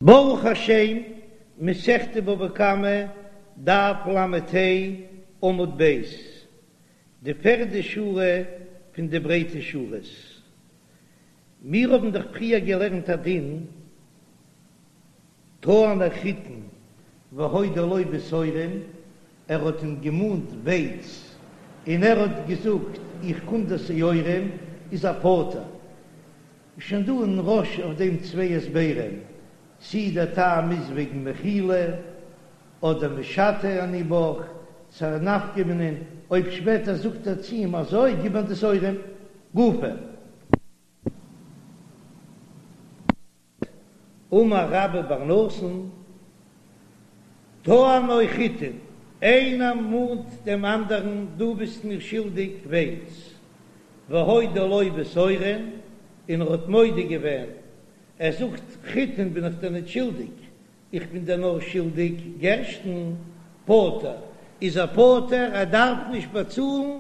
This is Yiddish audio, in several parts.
ברוך השם, מסכת בבא קמא, דף לה עמוד ב', די פערדע שורה פון די ברייטע שורות. מיר האבן דאך פריער געלערנט א דין, טענו חיטין והודה לו בשעורין, ער האט אים געמאנט ווייץ און ער האט געזאגט איך קום דיר שעורים, איז ער פטור. איז שוין דא אין רא"ש אויף דעם צוויי הסברים, צי דער טעם איז וועגן מחילה, אדער משוטה אני בך, ס'איז א נפקא מינה, אויב שפעטער זאגט ער צו אים אזוי גיב מיר די שעורים גופא. אמר רבה בר נתן, טענו חיטין, איינער מאנט דעם אנדערן דו ביסט מיר שולדיג ווייץ, והודה לו בשעורין, און ער האט מודה געווען, ער זאגט חיטין בין איך דיר ניט שולדיג, איך בין דיר נאר שולדיג גערשטן, פטור, איז ער פטור, ער דארף נישט באצאלן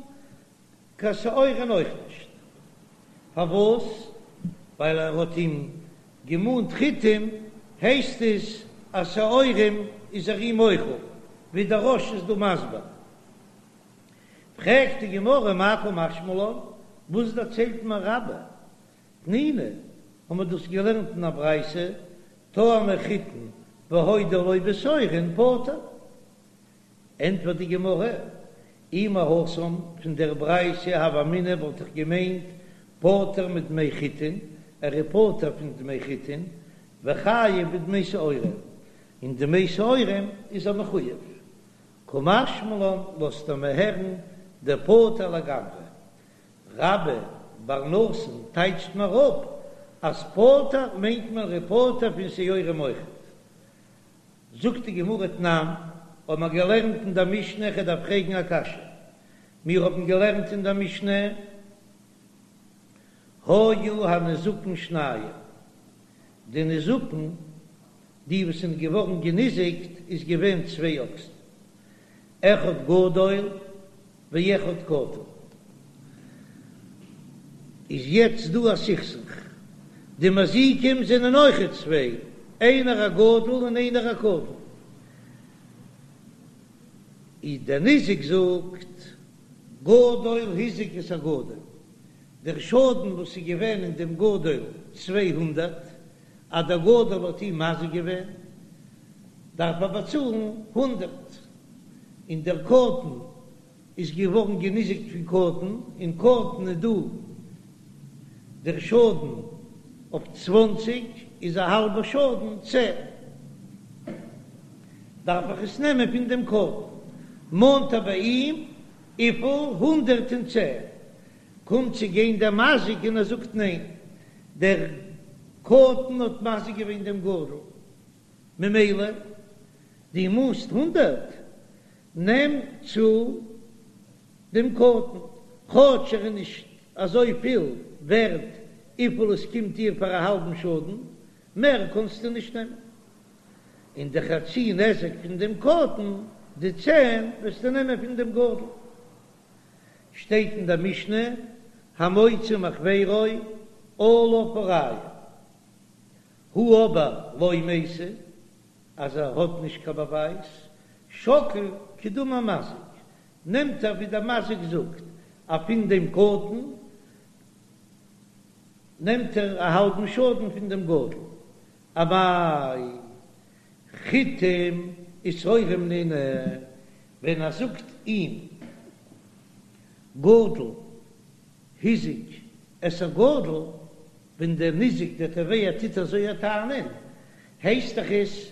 קיין שעורים אויך נישט. פארוואס? ווייל ער האט אים געמאנט חיטים, הייסט עס אז שעורים איז ער אים מוחל, ווי דער רא"ש איז דא מסביר. פרעגט די גמרא מאי קא משמע לן, וואס דערציילט מיר רבה? תנינא, האבן מיר דאס געלערנט אין א ברייתא, טענו חיטין והודה לו בשעורין פטור. ענטפערט די גמרא, אי מהתם, פון דער ברייתא הוה אמינא וואלט איך געמיינט פטור מדמי חיטין, ער איז פטור פון דמי חיטין, וחייב בדמי שעורים, און דמי שעורים איז ער מחויב. קא משמע לן לאזט ער מיר הערן דפטור לגמרי. רבה בר נתן טייטשט מיר אפ אז פטור מיינט מען ער איז פטור פון שעורים אויכעט. זאגט די גמרא תנן, האבן מיר געלערנט אין דער משנה, איך דארף פרעגן א קשיא, מיר האבן געלערנט אין דער משנה, היו הניזקין שניים, די ניזקין, די וואס זענען געווארן געניזיקט, איז געווען צוויי אקסן, אחד גדול ואחד קטן. איז יעצט דא א סכסוך, די מזיקים זענען אויכעט צוויי, איינער א גדול און איינער א קטן, איז דער ניזק זאגט גדול הזיק את הגדול, דער שאדן וואס איז געווען אין דעם גדול 200, אז דער גדול האט אים מזיק געווען דארף ער באצאלן הונדערט, און דער קטן איז געווארן געניזיקט פון קטן, אין קטן איז דא דער שאדן אויף צוואנציג, איז א האלבע שאדן צען, דארף איך עס נעמען פון דעם קטן, מאנט ער ביי אים וויפיל? 110, קומט צו גיין דער מזיק און ער זאגט ניין, דער קטן האט מזיק געווען דעם גדול, ממילא דו מאנסט הונדערט, נעם צו דעם קטן, כאטש ער איז נישט אזוי פיל ווערט וויפיל עס קומט דיר פאר א האלבן שאדן, מער קענסטו נישט נעמען. און די חצי נזק פון דעם קטן, די צען, וועסטו נעמען פון דעם גדול. שטייט אין דער משנה, המוציא מחבירו עליו הראיה. הא אבער לא מייתי, אז ער האט נישט קיין באווייז, שקיל כדאמר מזיק, נעמט ער ווי דער מזיק זאגט, אז פון דעם קטן נעמט ער א האלבן שאדן פון דעם גדול. אמאי חיטים ושעורים נינהו, ווען ער זאגט אים גדול הזיק את הגדול, ווען דער ניזק דער תובע טוט אזוי א טענה'ן, הייסט דאך עס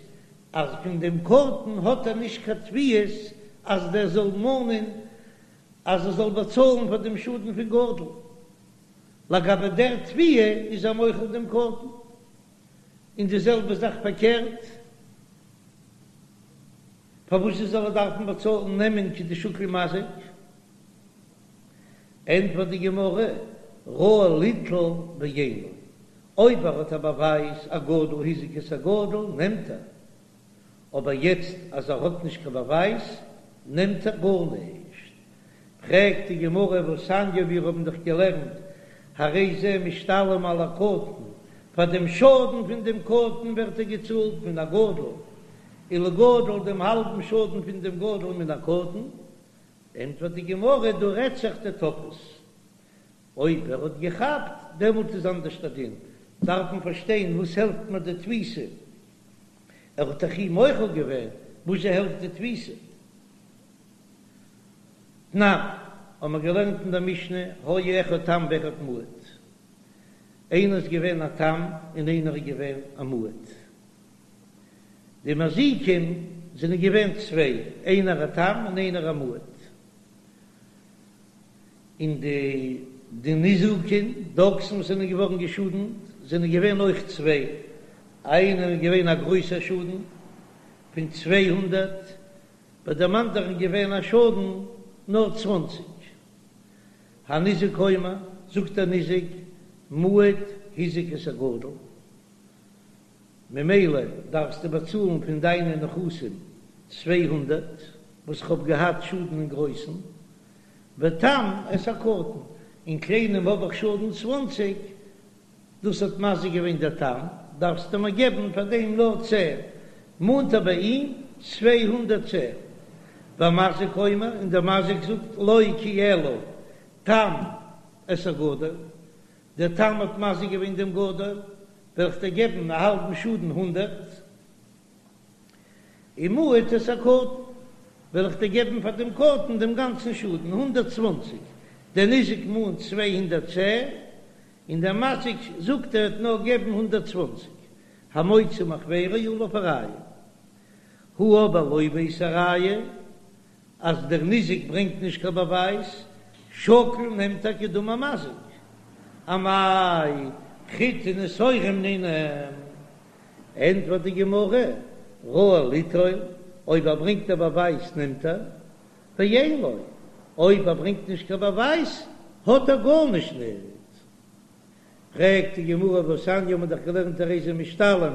אז פון דעם קטן האט ער נישט קיין תביעות אז דער זאל מאנען אז ער זאל באצאלן פאר דעם שאדן פון גדול, לגבי דער תביעה איז ער מוחל דעם קטן, און די זעלבע זאך פארקערט, פארוואס זאל ער דארפן באצאלן נעמען כדשקיל מזיק? ענטפערט די גמרא, ראוי ליטול ואין לו, אויב ער האט א באווייז אז גדול הזיק את הגדול נעמט ער, אבער יעצט אז ער האט נישט קיין באווייז נעמט ער גארנישט. פרעגט די גמרא והתניא מיר האבן דאך געלערנט הרי זה משתלם על הקטן. פאר דעם שאדן פון דעם קטן ווערט ער געצאלט מן הגדול, ולגדול דעם האלבן שאדן פון דעם גדול מן הקטן, ענטפערט די גמרא, דא רעדט זיך דתפס, אויב ער האט געכאפט דעמאלט איז אנדערש דער דין, דארף מען פארשטיין וואס העלפט מיר די תפיסה, ער האט דאך אים מוחל געווען, וואזשע העלפט די תפיסה? תנן, האבן מיר געלערנט אין דער משנה, היה אחד תם ואחד מועד. איינער איז געווען א תם און איינער איז געווען א מועד. די מזיקים זענען געווען צוויי, איינער א תם און איינער א מועד. און די די ניזקין, די אקסן וואס זענען געווארן געשאדנט, זענען געווען אויך צוויי, איינער איז געווען א גרויסער שאדן פון 200, ביי דעם אנדערן געווען א שאדן נאר צוואנציג. הניזק אומר, זאגט דער ניזק, מועד הזיק את הגדול, ממילא דארפסטו באצאלן פון דיינע נכסים 200 וואס כ'האב געהאט שאדן אין גרויסן, ותם את הקטן, אין קליינעם האב איך שאדן צוואנציג, דאס האט מזיק געווען דער תם, דארפסטו מיר געבן פאר דעם נאר צען, מאנט ער ביי אים 210. והמזיק אומר, און דער מזיק זאגט לא כי אלא תם את הגדול, דער תם האט מזיק געווען דעם גדול, וועל איך דיר געבן א האלבן שאדן הונדערט. ומועד את הקטן, וועל איך דיר געבן פאר דעם קטן דעם גאנצן שאדן, 120, דער ניזק מאנט 210, און דער מזיק זאגט ער וועט נאר געבן 120, המוציא מחבירו עליו הראיה. הא אבער לא בעית ראיה, אז דער ניזק ברענגט נישט קיין באווייז, שקיל נעמט ער כדאמר מזיק. אמאי חיטין ושעורים נינהו. ענטפערט די גמרא, ראוי ליטול, אויב ער ברענגט א באווייז נעמט ער, ואין לו, אויב ער ברענגט נישט קיין באווייז האט ער גארנישט ניט. פרעגט די גמרא והתניא האבן מיר דאך געלערנט הרי זה משתלם,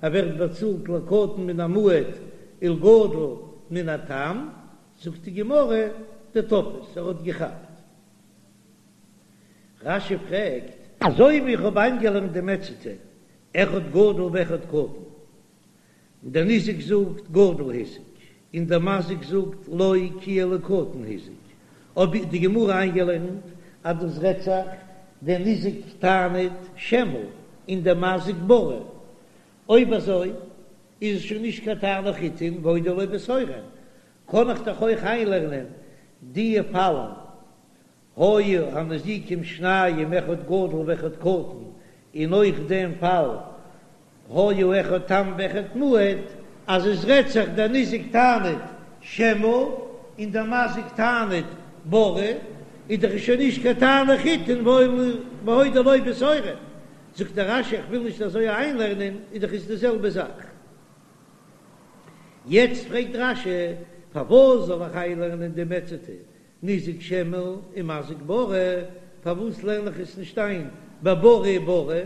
ער ווערט באצאלט לקטן מן המועד ולגדול מן התם, זאגט די גמרא דתפס, ער האט געכאפט. רש"י פרעגט, אזוי ווי איך האב איינגעלערנט די מציעתא אחד גדול ואחד קטן, און דער ניזק זאגט גדול הזיק, און דער מזיק זאגט לא כי אלא קטן הזיק, האב איך די גמרא איינגעלערנט אז דאס רעדט זיך דער ניזק טענה'ט שמא און דער מזיק בריא, אויב אזוי איז עס שוין נישט קיין טענו חיטין והודה לו בשעורין, קען איך דאך אויך איינלערנען די פאלן היו הנזיקים שניים אחד גדול ואחד קטן, און אויך דעם פאל היה אחד תם ואחד מועד, אז עס רעדט זיך דער ניזק טענה'ט שמא און דער מזיק טענה'ט בריא, איז דאך שוין נישט קיין טענו חיטין והודה לו בשעורין. זאגט דער רש"י איך וויל נישט אזוי איינלערנען, איז דאך עס די זעלבע זאך. יעצט פרעגט רש"י פארוואס זאל איך איינלערנען די מציעתא ניזק שמא און מזיק בריא, פארוואס לערן איך עס נישט איין בבריא ובריא?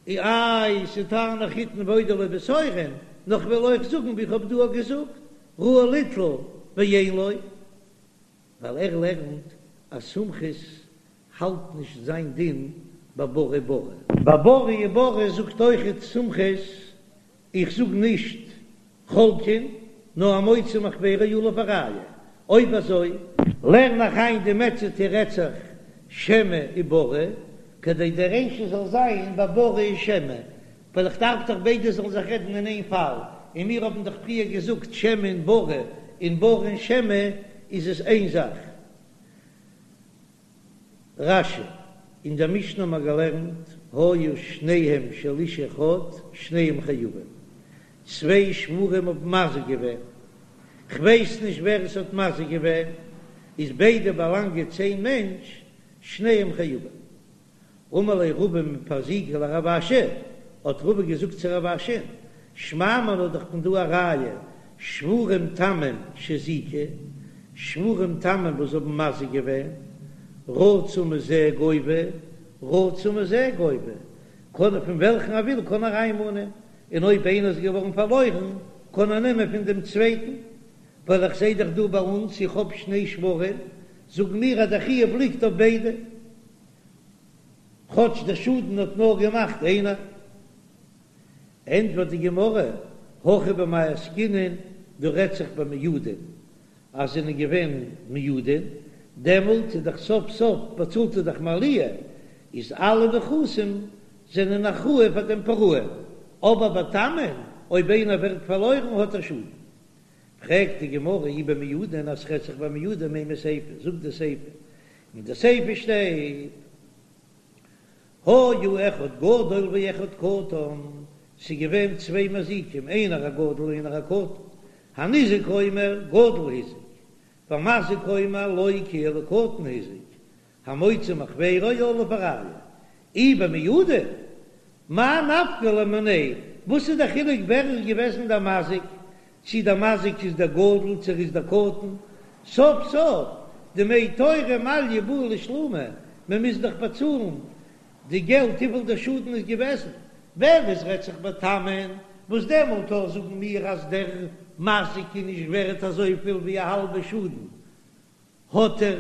איי ס'טענו חיטין והודה לו בשעורין, נאר כ'וועל אויך זאגן ווי כ'האב דא געזאגט, ראוי ליטול ואין לו, ווייל ער לערנט אז סומכוס האלט נישט זיין דין בבריא בריא. בבריא בריא זאגט אויכעט סומכוס, איך זאג נישט חולקין, נאר המוציא מחבירו עליו הראיה. אויב אזוי לערן איך איין די מציעתא רעדט זיך שמא ובריא, כדי די רישא זאל זיין בבריא שמא, ווייל איך דארף דאך ביידע זאלן זיך רעדן אין איין פאל, און מיר האבן דאך פריער געזאגט שמא און בריא, און בריא און שמא איז עס איין זאך. רש"י, אין דער משנה האבן מיר געלערנט, היו שניהם של איש אחד, שניהם חייבים. צוויי שוורים האבן מזיק געווען, כ'ווייס נישט ווער עס האט מזיק געווען, איז ביידע באלאנגען צו איין מענטש, שניהם חייבים. אמר ליה רבא מפרזיקא לרב אשי, האט רבא געזאגט צו רב אשי, שמע מינה דאך פון דא א ראיה, שוורים תמים שהזיקו, שוורים תמים וואס האבן מזיק געווען, רצה מזה גובה, רצה מזה גובה, קען ער פון וועלכן ער וויל קען ער איינמאנען, און אויב איינער איז געווארן פארלוירן קען ער נעמען פון דעם צווייטן, ווייל איך זעה דאך דא ביי אונז איך האב שני שוורים, זאגן מיר אז דער חיוב ליגט אויף ביידע. כאטש דער שאדן האט נאר געמאכט איינער. ענטפערט די גמרא, הכא במאי עסקינן, דא רעדט זיך במועדין, אז זענען געווען מועדין, דעמאלט איז דאך סוף סוף באצאלט ער דאך מעליה, איז אלע נכסים זענען אחראי פאר דעם פרעון, אבער ביי תמין, אויב איינער ווערט פארלוירן האט ער שאדן. פרעגט די גמרא אי במועדין אז ס'רעדט זיך במועדין לימא סיפא, זאגט די סיפא, אין די סיפא שטייט היה אחד גדול ואחד קטן, ס'איז געווען צוויי מזיקים איינער א גדול און איינער א קטן, הניזק אומר גדול הזיק, והמזיק אומר לא כי אלא קטן הזיק, המוציא מחבירו עליו הראיה, אי במועדין, מאי נפקא ליה מיניה, וואס איז דער חילוק ווער איז געוועזן דער מזיק, צי דער מזיק איז דער גדול צי ער איז דער קטן, סוף סוף דמי תורא מעליא בעי לשלומי, מען מוז דאך באצאלן די געלט וויפיל דער שאדן איז געוועזן, ווען עס רעדט זיך בתמין, וואס דעמאלט אויך זאגן מיר אז דער מזיק איז נישט ווערט אזויפיל ווי א האלבע שאדן, האט ער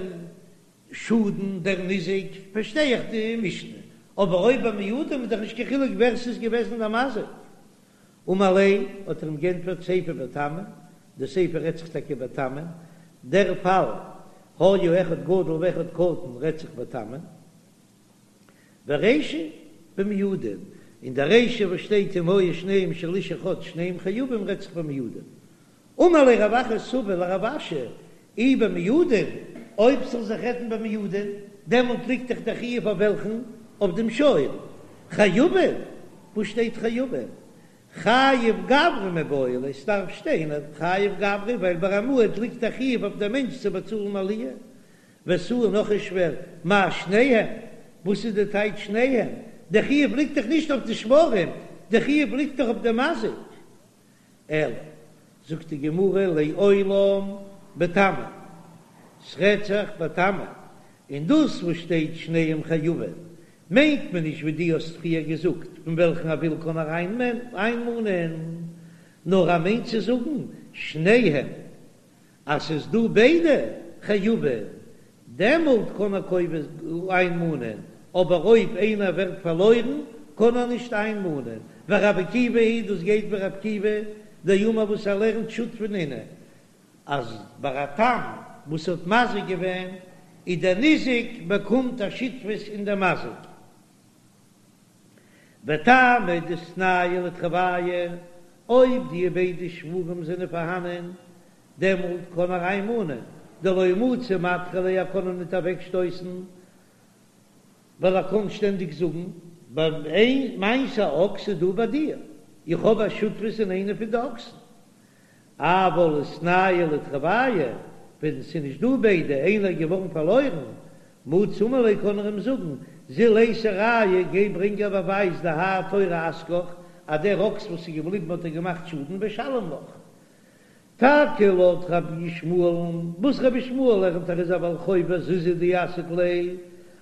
שאדן דער ניזק, פארשטיי איך די משנה, אבער אויב ביי מועדים איז דאך נישט קיין חילוק ווער ס'איז געוועזן דער מזיק. אמר ליה, האט ער אים גענטפערט סיפא בתמין, די סיפא רעדט זיך טאקע בתמין, דער פאל היה אחד גדול ואחד קטן רעדט זיך בתמין, ורישא במועדין, און די רישא וואס שטייט אם היו שניהם של איש אחד שניהם חייבים רעדט זיך במועדין. אמר ליה רב אחא סבא לרב אשי, אי במועדין, אויב ס'זאל זיך רעדן במועדין, דעמאלט ליגט דאך דער חיוב אויף וועלכן? אויף דעם שור. חייבין? וואו שטייט חייבין? חייב גברא מיבעי ליה, ס'דארף שטיין חייב גברא, ווייל ביי א מועד ליגט א חיוב אויף דעם מענטש צו באצאלן מעליה. ותו נאך איז שווער, מאי שניהם? וואס איז די טייטש שניהם? דער חיוב ליגט דאך נישט אויף די שוורים, דער חיוב ליגט דאך אויף דעם מזיק. אלא, זאגט די גמרא, לעולם בתמין, ס'רעדט זיך בתמין, און דאס וואס שטייט שניהם חייבין, מיינט מען נישט ווי דו האסט פריער געזאגט, פון וועלכן ער וויל קען ער איינמאנען, נאר ער מיינט צו זאגן שניהם, אז ס'איז דא ביידע חייבין, דעמאלט קען ער קובע איינמאנען, אבער אויב איינער ווערט פארלוירן קען ער נישט איינמאנען, ורבי עקיבא היא דאס גייט ווי רבי עקיבא דאמר וואס ער לערנט שותפין נינהו, אז ביי א תם וואס האט מזיק געווען איז דער ניזק באקומט א שותפות אין דער מזיק. וטעמא דאיתנהו לתרווייהו, אויב די ביידע שוורים זענען פארהאנען, דעמאלט קען ער איינמאנען, דלא מצי מדחי ליה ער קען אים ניט אוועקשטויסן, ווייל ער קען שטענדיג זאגן, ביי מיינס א אקס איז דא ביי דיר, איך האב א שותפות אין איינע פון די אקסן. אבל איתנהו לתרווייהו, ווען ס'איז נישט דא ביידע, איינער איז געווארן פארלוירן, מצי אמר ליה קען ער אים זאגן, זיל אייתי ראיה, גיי ברענג א באווייז דהאי תורא אזקך, אז דער אקס וואס איז געבליבן האט דיר געמאכט שאדן ושלים לך. טאקע לויט רבי ישמעאל'ן, וואס רבי ישמעאל לערנט ער איז א בעל חוב וזוזא דאסיק ליה,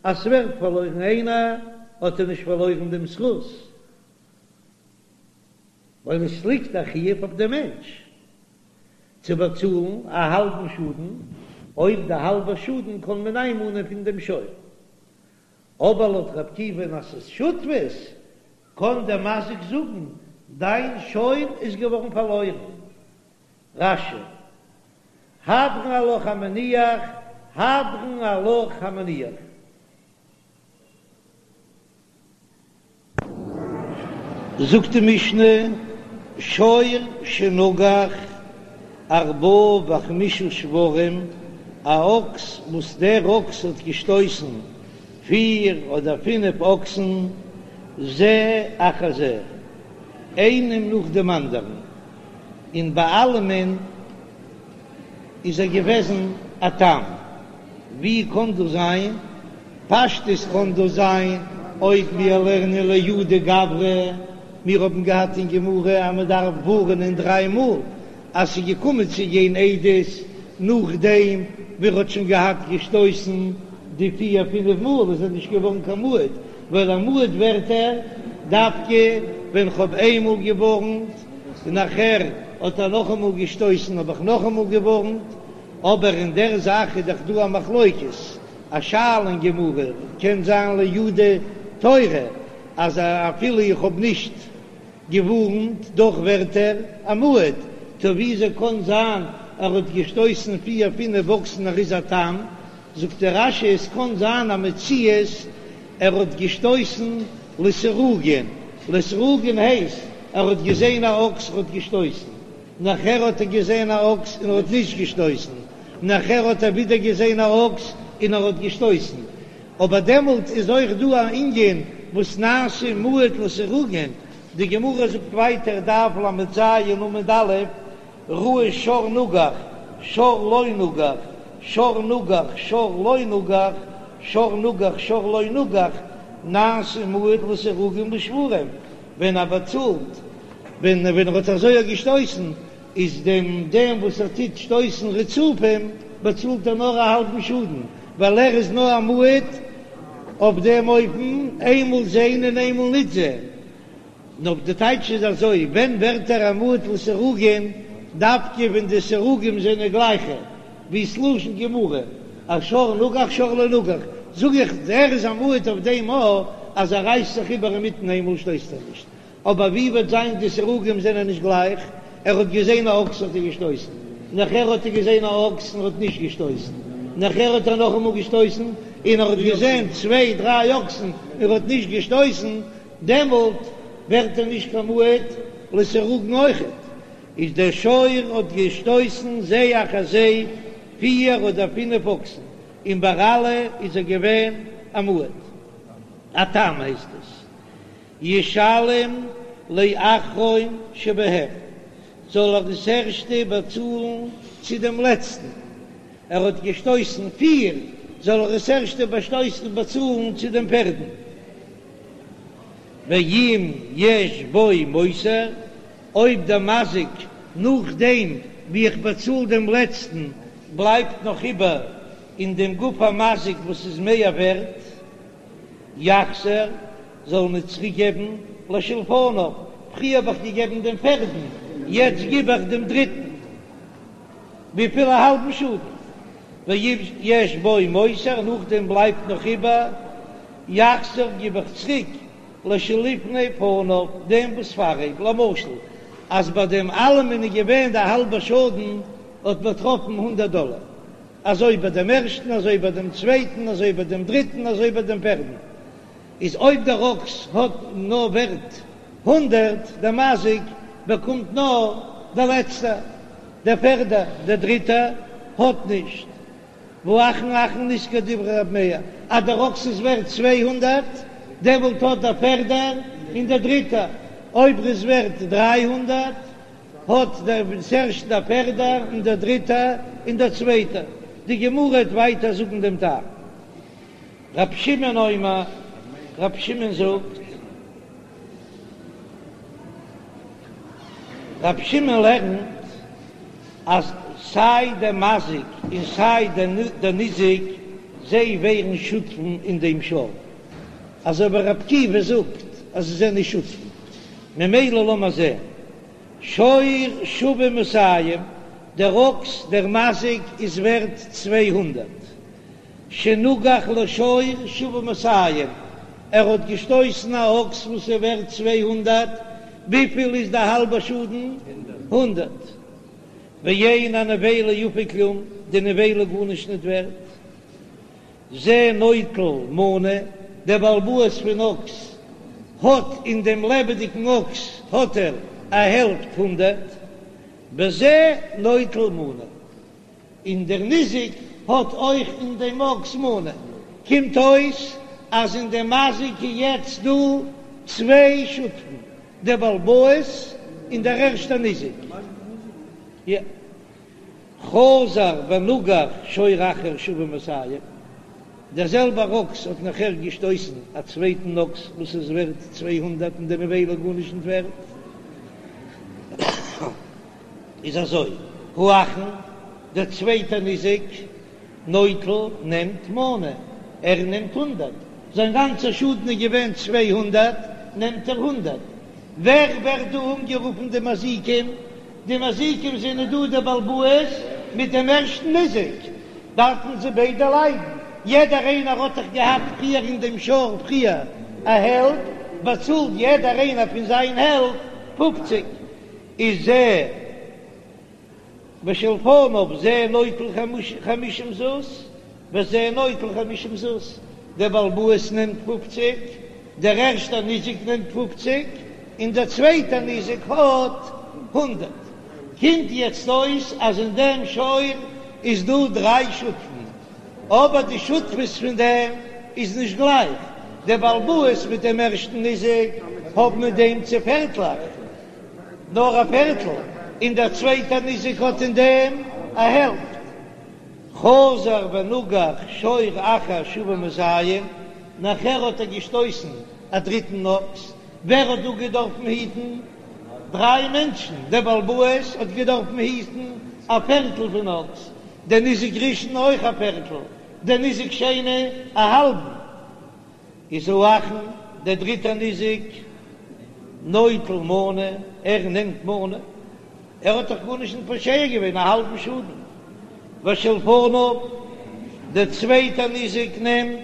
אז ס'ווערט פארלוירן איינער, האט ער נישט פארלוירן דעם זכות, ווייל עס ליגט א חיוב אויף דעם מענטש צו באצאלן א האלבן שאדן, אויב די האלבע שאדן קען מען איינמאנען פון דעם שור. אבער לויט רבי עקיבא'ן אז ס'איז שותפות, קען דער מזיק זאגן, דיין שור איז געווארן פארלוירן. רש"י, הדרן עלך המניח, הדרן עלך המניח. זאגט די משנה, שור שנגח ארבעה וחמישה שוורים, א אקס וואס דער אקס האט געשטויסן פיר אדער פינף אקסן, זה אחר זה, איינעם נאך דעם אנדערן, און ביי אלעמען איז ער געוועזן א תם. ווי קען דאס זיין? פשטות קען דאס זיין אויב מיר לערנען לייעודי גברא, מיר האבן געהאט אין גמרא אז מען דארף ווארענען דריי מאל אז ס'איז געקומען צו גיין עדות נאכדעם ווי ער האט שוין געהאט געשטויסן די פיר פינף מאל איז ער נישט געווארן קיין מועד, ווייל א מועד ווערט ער דווקא ווען כ'האב איינמאל געווארנט און נאכער האט ער נאכאמאל געשטויסן האב איך נאכאמאל געווארנט. אבער אין דער זאך איז דאך דא א מחלוקת, א שאלה אין גמרא, קען זיין לייעודי. תורה אז אפילו איך האב נישט געווארנט דאך ווערט ער א מועד, טא וויאזוי קען זיין ער האט געשטויסן פיר פינף אקסן ער איז א תם? זאגט דער רש"י עס קען זיין א מציאות ער האט געשטויסן לסירוגין, לסירוגין הייסט ער האט געזען א אקס ער האט געשטויסן, נאכער האט ער געזען א אקס און ער האט נישט געשטויסן, נאכער האט ער ווידער געזען א אקס און ער האט געשטויסן, אבער דעמאלט איז אויך דא א ענין וואס נעשה מועד לסירוגין, די גמרא זאגט ווייטער דף ל"ז עמוד א', ראה שור נגח, שור לא נגח, שור נגח, שור לא נגח, שור נגח, שור לא נגח, נעשה מועד לסירוגין לשוורים, ווען ער באצאלט, ווען ווען ער האט אזוי געשטויסן, איז דעם דעם וואס ער טוט שטויסן רצופים, באצאלט ער נאר א האלבן שאדן, ווייל ער איז נאר א מועד אויף דעם אופן, איינמאל זען און איינמאל ניט זען. נאר די טייטש איז אזוי, ווען ווערט ער א מועד לסירוגין, דווקא ווען די סירוגים זענען גלייכע, ווי ס'לשון גמרא, אז שור נגח שור לא נגח, זאג איך ער איז א מועד אויף דעם א אז ער רייסט זיך איבער אינמיטן איינמאל שטויסט ער נישט, אבער ווי וועט זיין די סירוגים זענען נישט גלייך, ער האט געזען א אקס האט ער געשטויסן, נאכער האט ער געזען א אקס און האט נישט געשטויסן, נאכער האט ער נאכאמאל געשטויסן און ער האט געזען צוויי דריי אקסן און ער האט נישט געשטויסן, דעמאלט ווערט ער נישט קיין מועד לסירוגין אויכעט, איז דער שור האט געשטויסן זה אחר זה פיר אדער פינף אקסן, און ביי אלע איז ער געווען א מועד, א תם הייסט עס, ישלם לאחרון שבהם, זאל ער דאס ערשטע באצאלן צו דעם לעצטן, ער האט געשטויסן פיר, זאל ער דאס ערשטע באצאלן צו דעם פערדן. ואם יש בו מותר, אויב דער מזיק נאכדעם ווי איך באצאל דעם לעצטן בלייבט נאך איבער אין דעם גוף המזיק וואס איז מער ווערט, יחזיר, זאל מען צוריק געבן לשלפניו, פריער האב איך געגעבן דעם פערדן, יעצט גיב איך דעם דריטן, וויפיל א האלבן שאדן, ואם יש בו מותר, נאכדעם בלייבט נאך איבער, יחזיר גיב איך צוריק לשלפני פניו, דעם וואס פאר אים, למשל אז ביי דעם אלעמען איז געווען די האלבע שאדן האט באטראפן הונדערט דאלער, אזוי ביי דעם ערשטן אזוי ביי דעם צווייטן אזוי ביי דעם דריטן אזוי ביי דעם פערדן, איז אויב דער אקס האט נאר ווערט הונדערט, דער מזיק באקומט נאר דער לעצטער, דער פערדער, דער דריטער האט נישט. והאחרון אחרון נשכר דברי רב מאיר אז דער אקס איז ווערט 200, דעמאלט האט דער פערדער און דער דריטער, אויב ער איז ווערט 300 האט דער ערשטער דער פערדער און דער דריטער און דער צווייטער. די גמרא וועט ווייטער זאגן דעם טעם. רב שמעון אומר, רב שמעון זאגט, רב שמעון לערנט אז סיי דער מזיק און סיי דער ניזק זיי ווערן שותפים אין דעם שור, אזוי ווי ר' עקיבא זאגט אז זיי זענען שותפים, ממילא לאמיר זען, שור שווה מאתים, דער אקס דער מזיק איז ווערט 200, שנגח לשור שווה מאתים, ער האט געשטויסן א אקס וואס איז ווערט 200, וויפיל איז די האלבע שאדן? הונדערט. ואין הנבילה יפה כלום, די נבילה גארנישט ניט ווערט. זה נוטל מנה, דער בעל הבית פון אקס האט אין דעם לעבעדיגן אקס האט ער א העלפט הונדערט, וזה נוטל מנה. און דער ניזק האט אויך אין דעם אקס מנה, קומט אויס אז אין דעם מזיק איז יעצט דא צוויי שותפים, דער בעל הבית און דער ערשטער ניזק. חזר ונגח שור אחר שווה מאתים, דער זעלבער אקס האט נאכער געשטויסן א צווייטן אקס וואס איז ווערט 200 און די נבילה גארנישט נישט ווערט. איז אזוי, האחרון, דער צווייטער ניזק, נוטל, נעמט מנה, ער נעמט הונדערט, זיין גאנצער שאדן איז געווען 200, נעמט ער הונדערט. ווער ווערט דא אנגערופן די מזיקים? די מזיקים זענען דא דער בעל הבית מיט דעם ערשטן ניזק, דארפן זיי ביידע ליידן, יעדער איינער האט דאך געהאט פריער אין דעם שור פריער. א העלפט, באצאלט יעדער איינער פון זיין העלפט פופציג, איז זה ושלפניו זה נוטל חמישים זוז וזה נוטל חמישים זוז, דער בעל הבית נעמט פופציג, דער ערשטער ניזק נעמט פופציג, און דער צווייטער ניזק האט הונדערט. קומט יעצט אויס אז אין דעם שור איז דא דריי שותפים, אבער די שותפות פון דעם איז נישט גלייך, דער בעל הבית מיט דעם ערשטן ניזק האבן אין דעם צו פערטלעך, נאר א פערטל, און דער צווייטער ניזק האט אין דעם א העלפט. חזר ונגח שור אחר שוה מאתים, נאכער האט ער געשטויסן א דריטן אקס, ווער האט דא געדארפן היטן? דריי מענטשן, דער בעל הבית האט געדארפן היטן א פערטל פון אקס, דער ניזק ראשון אויך א פערטל, דער ניזק שני א האלבן. איז האחרון דער דריטער ניזק נוטל מנה, ער נעמט מנה, ער האט דאך גארנישט נישט פושע געווען, א האלבן שאדן, ושלפניו, דער צווייטער ניזק נעמט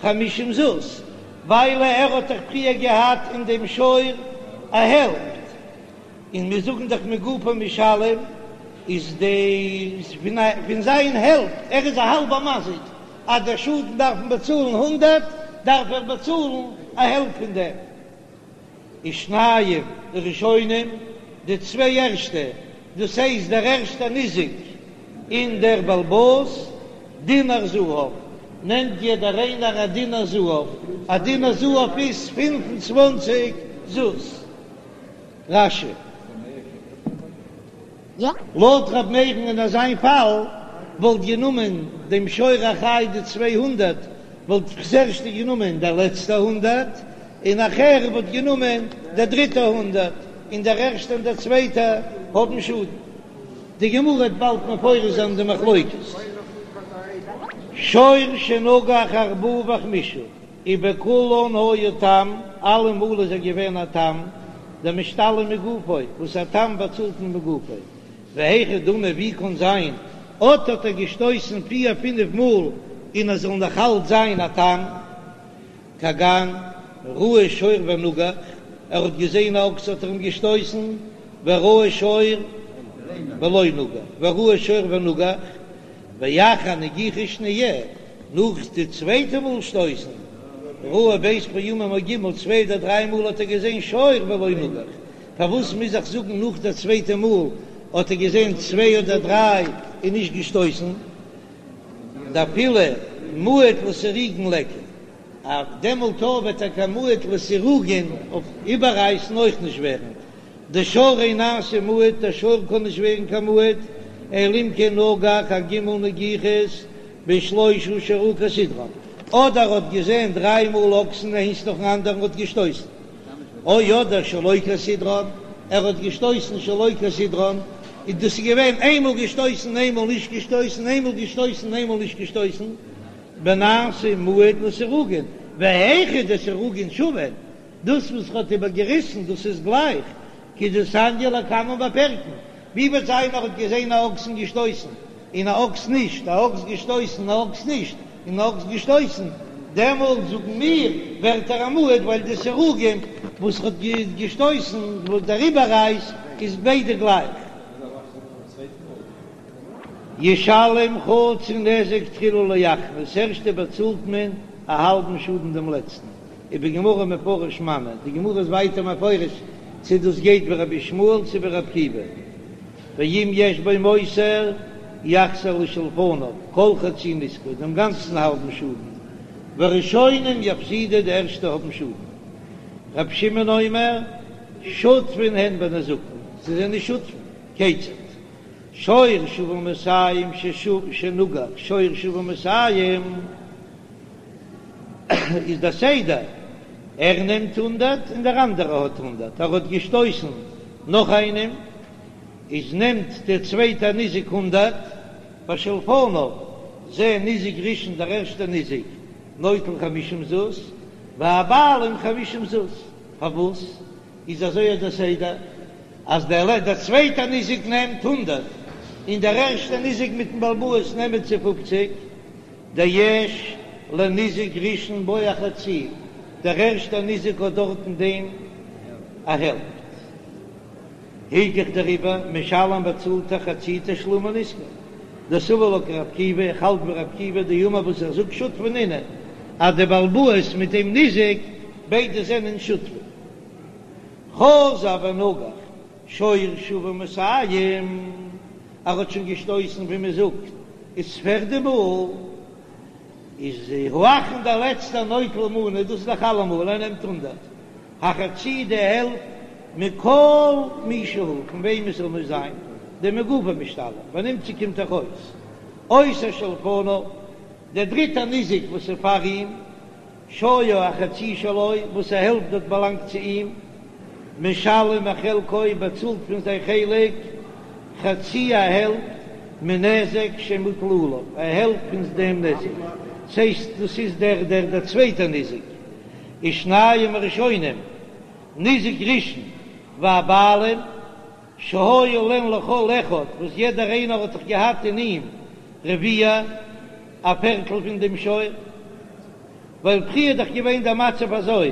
חמישים זוז, ווייל ער האט דאך פריער געהאט אין דעם שור א העלפט, און מיר זאגן דאך מגופו משלם, איז די פון זיין העלפט, ער איז א האלבער מזיק, אז דער שאדן דארף מען באצאלן הונדערט, דארף ער באצאלן א העלפט פון דעם. ושנים ראשונים, די צוויי ערשטע, דאס הייסט דער ערשטער ניזק און דער בעל הבית, דינר זהב, נעמט יעדער איינער א דינר זהב, א דינר זהב איז פינף און צוואנציג זוז. רש"י. לויט ר' מאיר'ן אין אזיין פאל וואלט גענומען דעם שור החי די 200 וואלט ס'ערשטע גענומען דער לעצטער הונדערט און נאכער וואלט גענומען דער דריטער הונדערט און דער ערשטער און דער צווייטער האבן שאדן. די גמרא וועט באלד מפרש זיין די מחלוקת. שור שנגח ארבעה וחמישה. ובכולן היה תם, אלעמאל איז ער געווען א תם, דמשתלם מגופו, וואס א תם באצאלט מען מגופו, והיכי דמי ווי קאן זיין, אט האט ער געשטויסן פיר פינף מאל און ער זאל נאך אלץ זיין א תם, כגון ראה שור ונגח, ער האט געזען א אקס האט ער אים געשטויסן, וראה שור ולא נגח, וראה שור ונגח, ואחר נגיחה שניה, נאך די צווייטע מאל שטויסן, ראה ב' פעמים או ג', צוויי אדער דריי מאל האט ער געזען שור ולא נגח, פארוואס מוז איך זאגן נאך די צווייטע מאל האט ער געזען צוויי אדער דריי און נישט געשטויסן? דאפילו מועד לסירוגין ליכא, אז דעמאלט וועט ער קיין מועד לסירוגין אויף איבעררייסן אויך נישט ווערן, דשור אין נעשה מועד, דער שור קען נישט ווערן קיין מועד, אלא אם כן נגח ג' נגיחות בשלושה שראה כסדרן, אדער האט געזען דריי מאל אקסן איינס נאכן אנדערן האט געשטויסן, או אדער שלא כסדרן, ער האט געשטויסן שלא כסדרן, און דאס איז געווען איינמאל געשטויסן איינמאל נישט געשטויסן, איינמאל געשטויסן איינמאל נישט געשטויסן, ונעשה מועד לסירוגין, והיכא דסירוגין שוין, דאס וואס ר'האט איבערגעריסן דאס איז גלייך כדתניא לקמן בפרקין, ווי וועט זיין ער האט געזען א אקס און געשטויסן און א אקס נישט, א אקס געשטויסן א אקס נישט, און א אקס געשטויסן, דעמאלט זאגן מיר ווערט ער א מועד ווייל די סירוגין וואס ר'האט געשטויסן וואס דער איבעררייס איז ביידע גלייך. ישלם חצי נזק תחילה לאחרון, ס'ערשטע באצאלט מען א האלבן שאדן דעם לעצטן. ובגמרא מפרש מני, די גמרא איז ווייטער מפרש צו דאס גייט ווי רבי ישמעאל צו ווי רבי עקיבא, ואם יש בו מותר יחזיר לשלפניו כל חצי נזקו, דעם גאנצן האלבן שאדן, והראשונים יפסידו, די ערשטע האבן שאדן. רבי שמעון אומר, שותפין הן בנזקין, זיי זענען שותפים, כיצד? שור שוה מאתים שנגח שור שוה מאתים. איז דער סדר, ער נעמט הונדערט און דער אנדערער האט הונדערט, ער האט געשטויסן נאך איינעם, איז נעמט דער צווייטער ניזק הונדערט, ושלפניו זה ניזק ראשון דער ערשטער ניזק נוטל חמישים זוז, והבעלים חמישים זוז, פארוואס איז אזוי דער סדר אז דער צווייטער ניזק נעמט הונדערט און דער ערשטער ניזק מיטן בעל הבית נעמען צו פופציג? דיש לניזק ראשון בו החצי. דער ערשטער ניזק האט דארט אין דעם א העלפט. הילכך דעריבער משלם באצאלט ער חצי תשלומי נזקו. דסבר לה כרבי עקיבא, איך האלט ווי רבי עקיבא דאמר וואס ער זאגט שותפי נינהו אז די בעל הבית מיט דעם ניזק ביידע זענען שותפים. חזר ונגח שור שוה מאתים, ער האט שוין געשטויסן ווי מען זאגט איז פערדע מאל, איז האחרון דער לעצטער נוטל מנה, דאס איז דאך אלעמאל ער נעמט הונדערט, החצי די העלפט מכל מי שהוא פון וועם עס זאל נאר זיין, דמגופו משתלם, ונמצא קומט דאך אויס אותו שלפניו, דער דריטער ניזק וואס איז פאר אים, שהיה החצי שלו, וואס א העלפט האט באלאנגט צו אים, משלם מחלקו, באצאלט פון זיין חלק, חצי א העלפט, מנזק שמוטל עליו, א העלפט פון דעם נזק, ס'הייסט דאס איז דער דער דער צווייטער ניזק, ושניים הראשונים, ניזק ראשון והבעלים, שהיה להן לכל אחד, וואס יעדער איינער האט דאך געהאט אין אים רביע, א פערטל פון דעם שור, ווייל פריער איז דאך געווען דער מצב אזוי,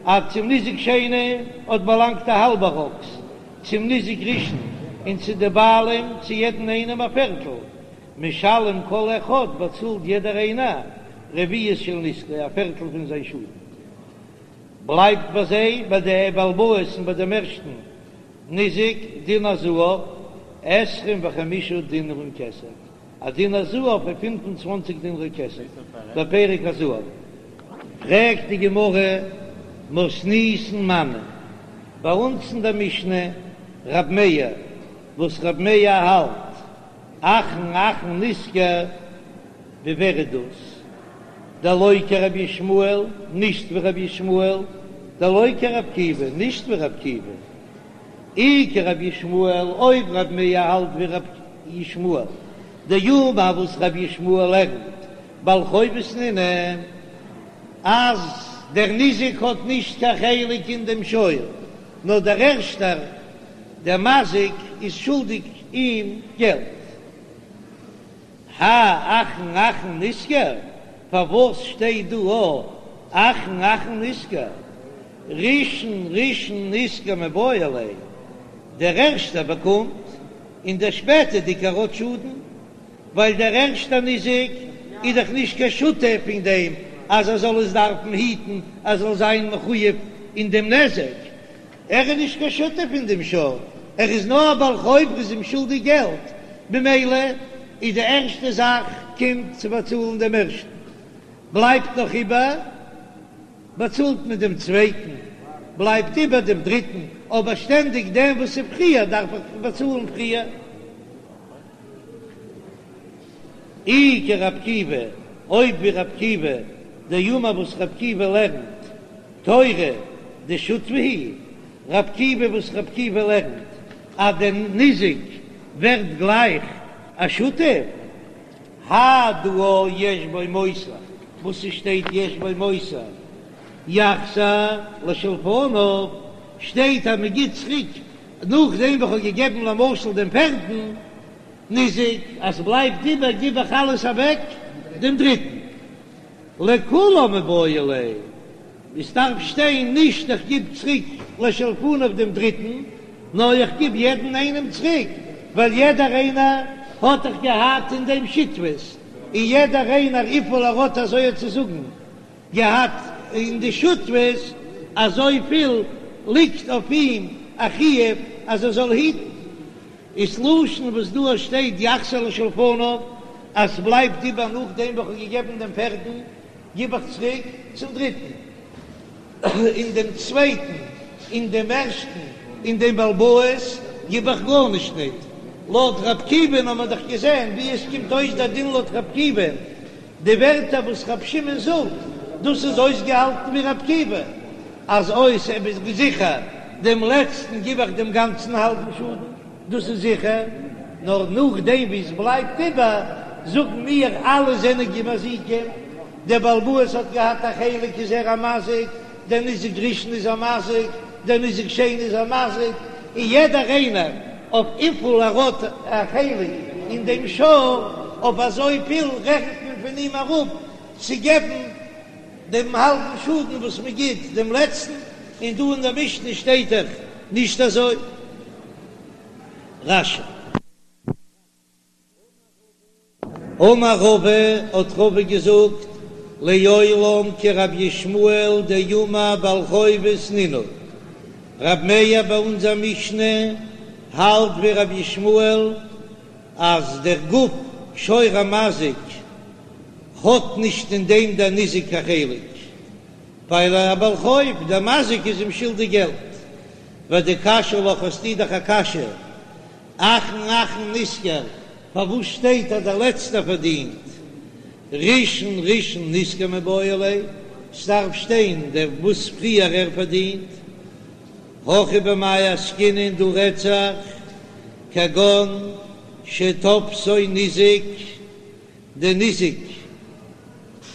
אז צום ניזק שני האט באלאנגט א האלבער אקס, צום ניזק ראשון און צו די בעלים צו יעדן איינעם א פערטל, משלם כל אחד באצאלט יעדער איינער רביעית של נזקו א פערטל פון זיין שאדן. בלייבט ביי זיי, ביי די בעל הבית און ביי דעם ערשטן ניזק, דינר זהב, עשרים וחמישה דינרים כסף, א דינר זהב פון 25 דינרי כסף, בפרק הזהב. פרעגט די גמרא, מתניתין מני, ביי אונז אין דער משנה, רב מאיר, וואס רב מאיר האלט, אחרון אחרון נשכר, ווי ווער איז דאס? דלא כרבי ישמעאל, נישט ווי רבי ישמעאל, דלא כרבי עקיבא, נישט ווי רבי עקיבא. אי כרבי ישמעאל, אויב רבי מאיר האלט ווי רבי ישמעאל, דאמר וואס רבי ישמעאל לערנט בעל חובות נינהו, אז דער ניזק האט נישט קיין חלק אין דעם שור, נאר דער ערשטער, דער מזיק, איז שולדיג אים געלט. האי אחרון אחרון נשכר, פארוואס שטייט דא א אחרון אחרון נשכר? ראשון ראשון נשכר מיבעי ליה, דער ערשטער באקומט און דער שפעטערדיגער האט שאדן, ווייל דער ערשטער ניזק איז דאך נישט קיין שותף אין דעם אז ער זאל עס דארפן היטן, ער זאל זיין מחויב אין דעם נזק, ער איז נישט קיין שותף אין דעם שור, ער איז נאר א בעל חוב, ער איז אים שולדיג געלט, ממילא איז די ערשטע זאך קומט צו באצאלן דעם ערשטן, בלייבט נאך איבער באצאלט מען דעם צווייטן, בלייבט איבער דעם דריטן, אבער שטענדיג דעם וואס איז פריער דארף איך באצאלן פריער. אי כרבי עקיבא, אויב ווי רבי עקיבא, דאמר וואס רבי עקיבא לערנט, תורא דשותפי הוא, רבי עקיבא וואס רבי עקיבא לערנט אז דער ניזק ווערט גלייך א שותף, האי דא יש בו מותר, וואס ס'שטייט יש בו מותר יחזיר לשלפניו, שטייט אז מ'גיט צוריק נאכדעם וואס כ'האב געגעבן למשל דעם פערטן ניזק, אז ס'בלייבט איבער גיב איך אלעס אוועק דעם דריטן. לכולם מיבעי ליה, עס דארף שטיין נישט איך גיב צוריק לשלפניו דעם דריטן, נאר איך גיב יעדן איינעם צוריק, ווייל יעדער איינער האט דאך געהאט אין דעם שותפות, און יעדער איינער וויפיל ער האט אזוי צו זאגן געהאט אין די שותפות, אזויפיל ליגט אויף אים א חיוב אז ער זאל היטן. איז לשון וואס דא שטייט יחזיר לשלפניו, אז ס'בלייבט איבער נאכדעם וואס כ'האב געגעבן דעם פערטן, גיב איך צוריק צום דריטן, און דעם צווייטן, און דעם ערשטן, און דעם בעל הבית גיב איך גארנישט ניט. לויט ר' עקיבא'ן האט מען דאך געזען ווי עס קומט אויס דער דין לויט ר' עקיבא'ן, די ווערטער וואס ר' שמעון זאגט, דאס איז אויסגעהאלטן ווי ר' עקיבא, אז אויס ער איז זיכער דעם לעצטן גיב איך דעם גאנצן האלבן שאדן, דאס איז זיכער, נאר נאכדעם ווי עס בלייבט איבער, זאגן מיר אלע זענען מזיקים, דער בעל הבית האט געהאט א חלק איז ער א מזיק, דער ניזק ראשון איז א מזיק, דער ניזק שני איז א מזיק, און יעדער איינער אויף וויפיל ער האט א חלק אין דעם שור, אויף אזויפיל רעכנט מען פון אים אראפ צו געבן. דעם האלבן שאדן וואס מען גיט דעם לעצטן, און דא אין דער משנה שטייט דאך נישט אזוי. רש"י. אמר רבא, האט רבא געזאגט, לעולם כרבי ישמעאל דאמר בעל חובות נינהו, רב מאיר ביי אונזער משנה האלט ווי רבי ישמעאל אז דער גוף שור המזיק האט נישט אין דעם דער ניזק קיין חלק, ווייל ער א בעל חוב, דער מזיק איז אים שולדיג געלט. ודקשיא לך האסטו דאך א קשיא, אחרון אחרון נשכר, פארוואס שטייט אז דער לעצטער פארדינט? ראשון ראשון נשכר מיבעי ליה, ס'דארף שטיין דער וואס פריער ער פארדינט. הכא במאי עסקינן דא רעדט זיך כגון שתפסו ניזק, דער ניזק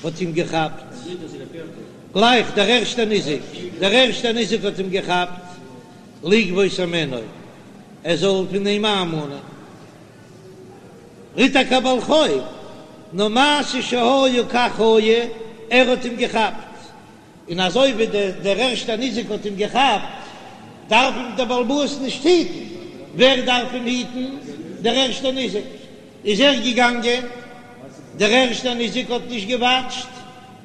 האט אים געכאפט, גלייך דער ערשטער ניזק, דער ערשטער ניזק האט אים געכאפט לגבות הימנו, ער זאל פון אים איינמאנען, ער איז טאקע א בעל חוב, נאר מעשה שהיה כך היה, ער האט אים געכאפט, און אזוי ווי דער ערשטער ניזק האט אים געכאפט, דארף אים דער בעל הבית נישט היטן, ווער דארף אים היטן? דער ערשטער ניזק. איז ער געגאנגען, דער ערשטער ניזק האט נישט געוואטשט,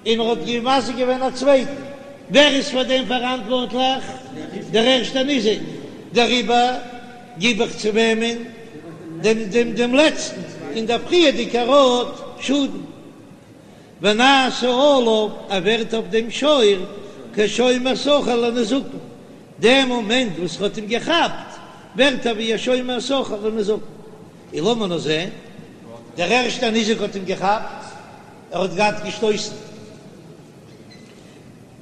און ער האט מזיק געווען א צווייטן, ווער איז פאר דעם פאראנטווארטליך? דער ערשטער ניזק, דעריבער גיב איך צו וועמען? דעם דעם דעם לעצטן, און דער פריערדיגער האט שאדן. ונעשה עליו, ער ווערט אויף דעם שור כשומר שכר לנזקין, דעם מאמענט וואס ער האט אים געכאפט, ווערט ער ווי א שומר שכר לנזקין. און לאמיר נאר זען, דער ערשטער ניזק האט אים געכאפט, ער האט געהאט געשטויסן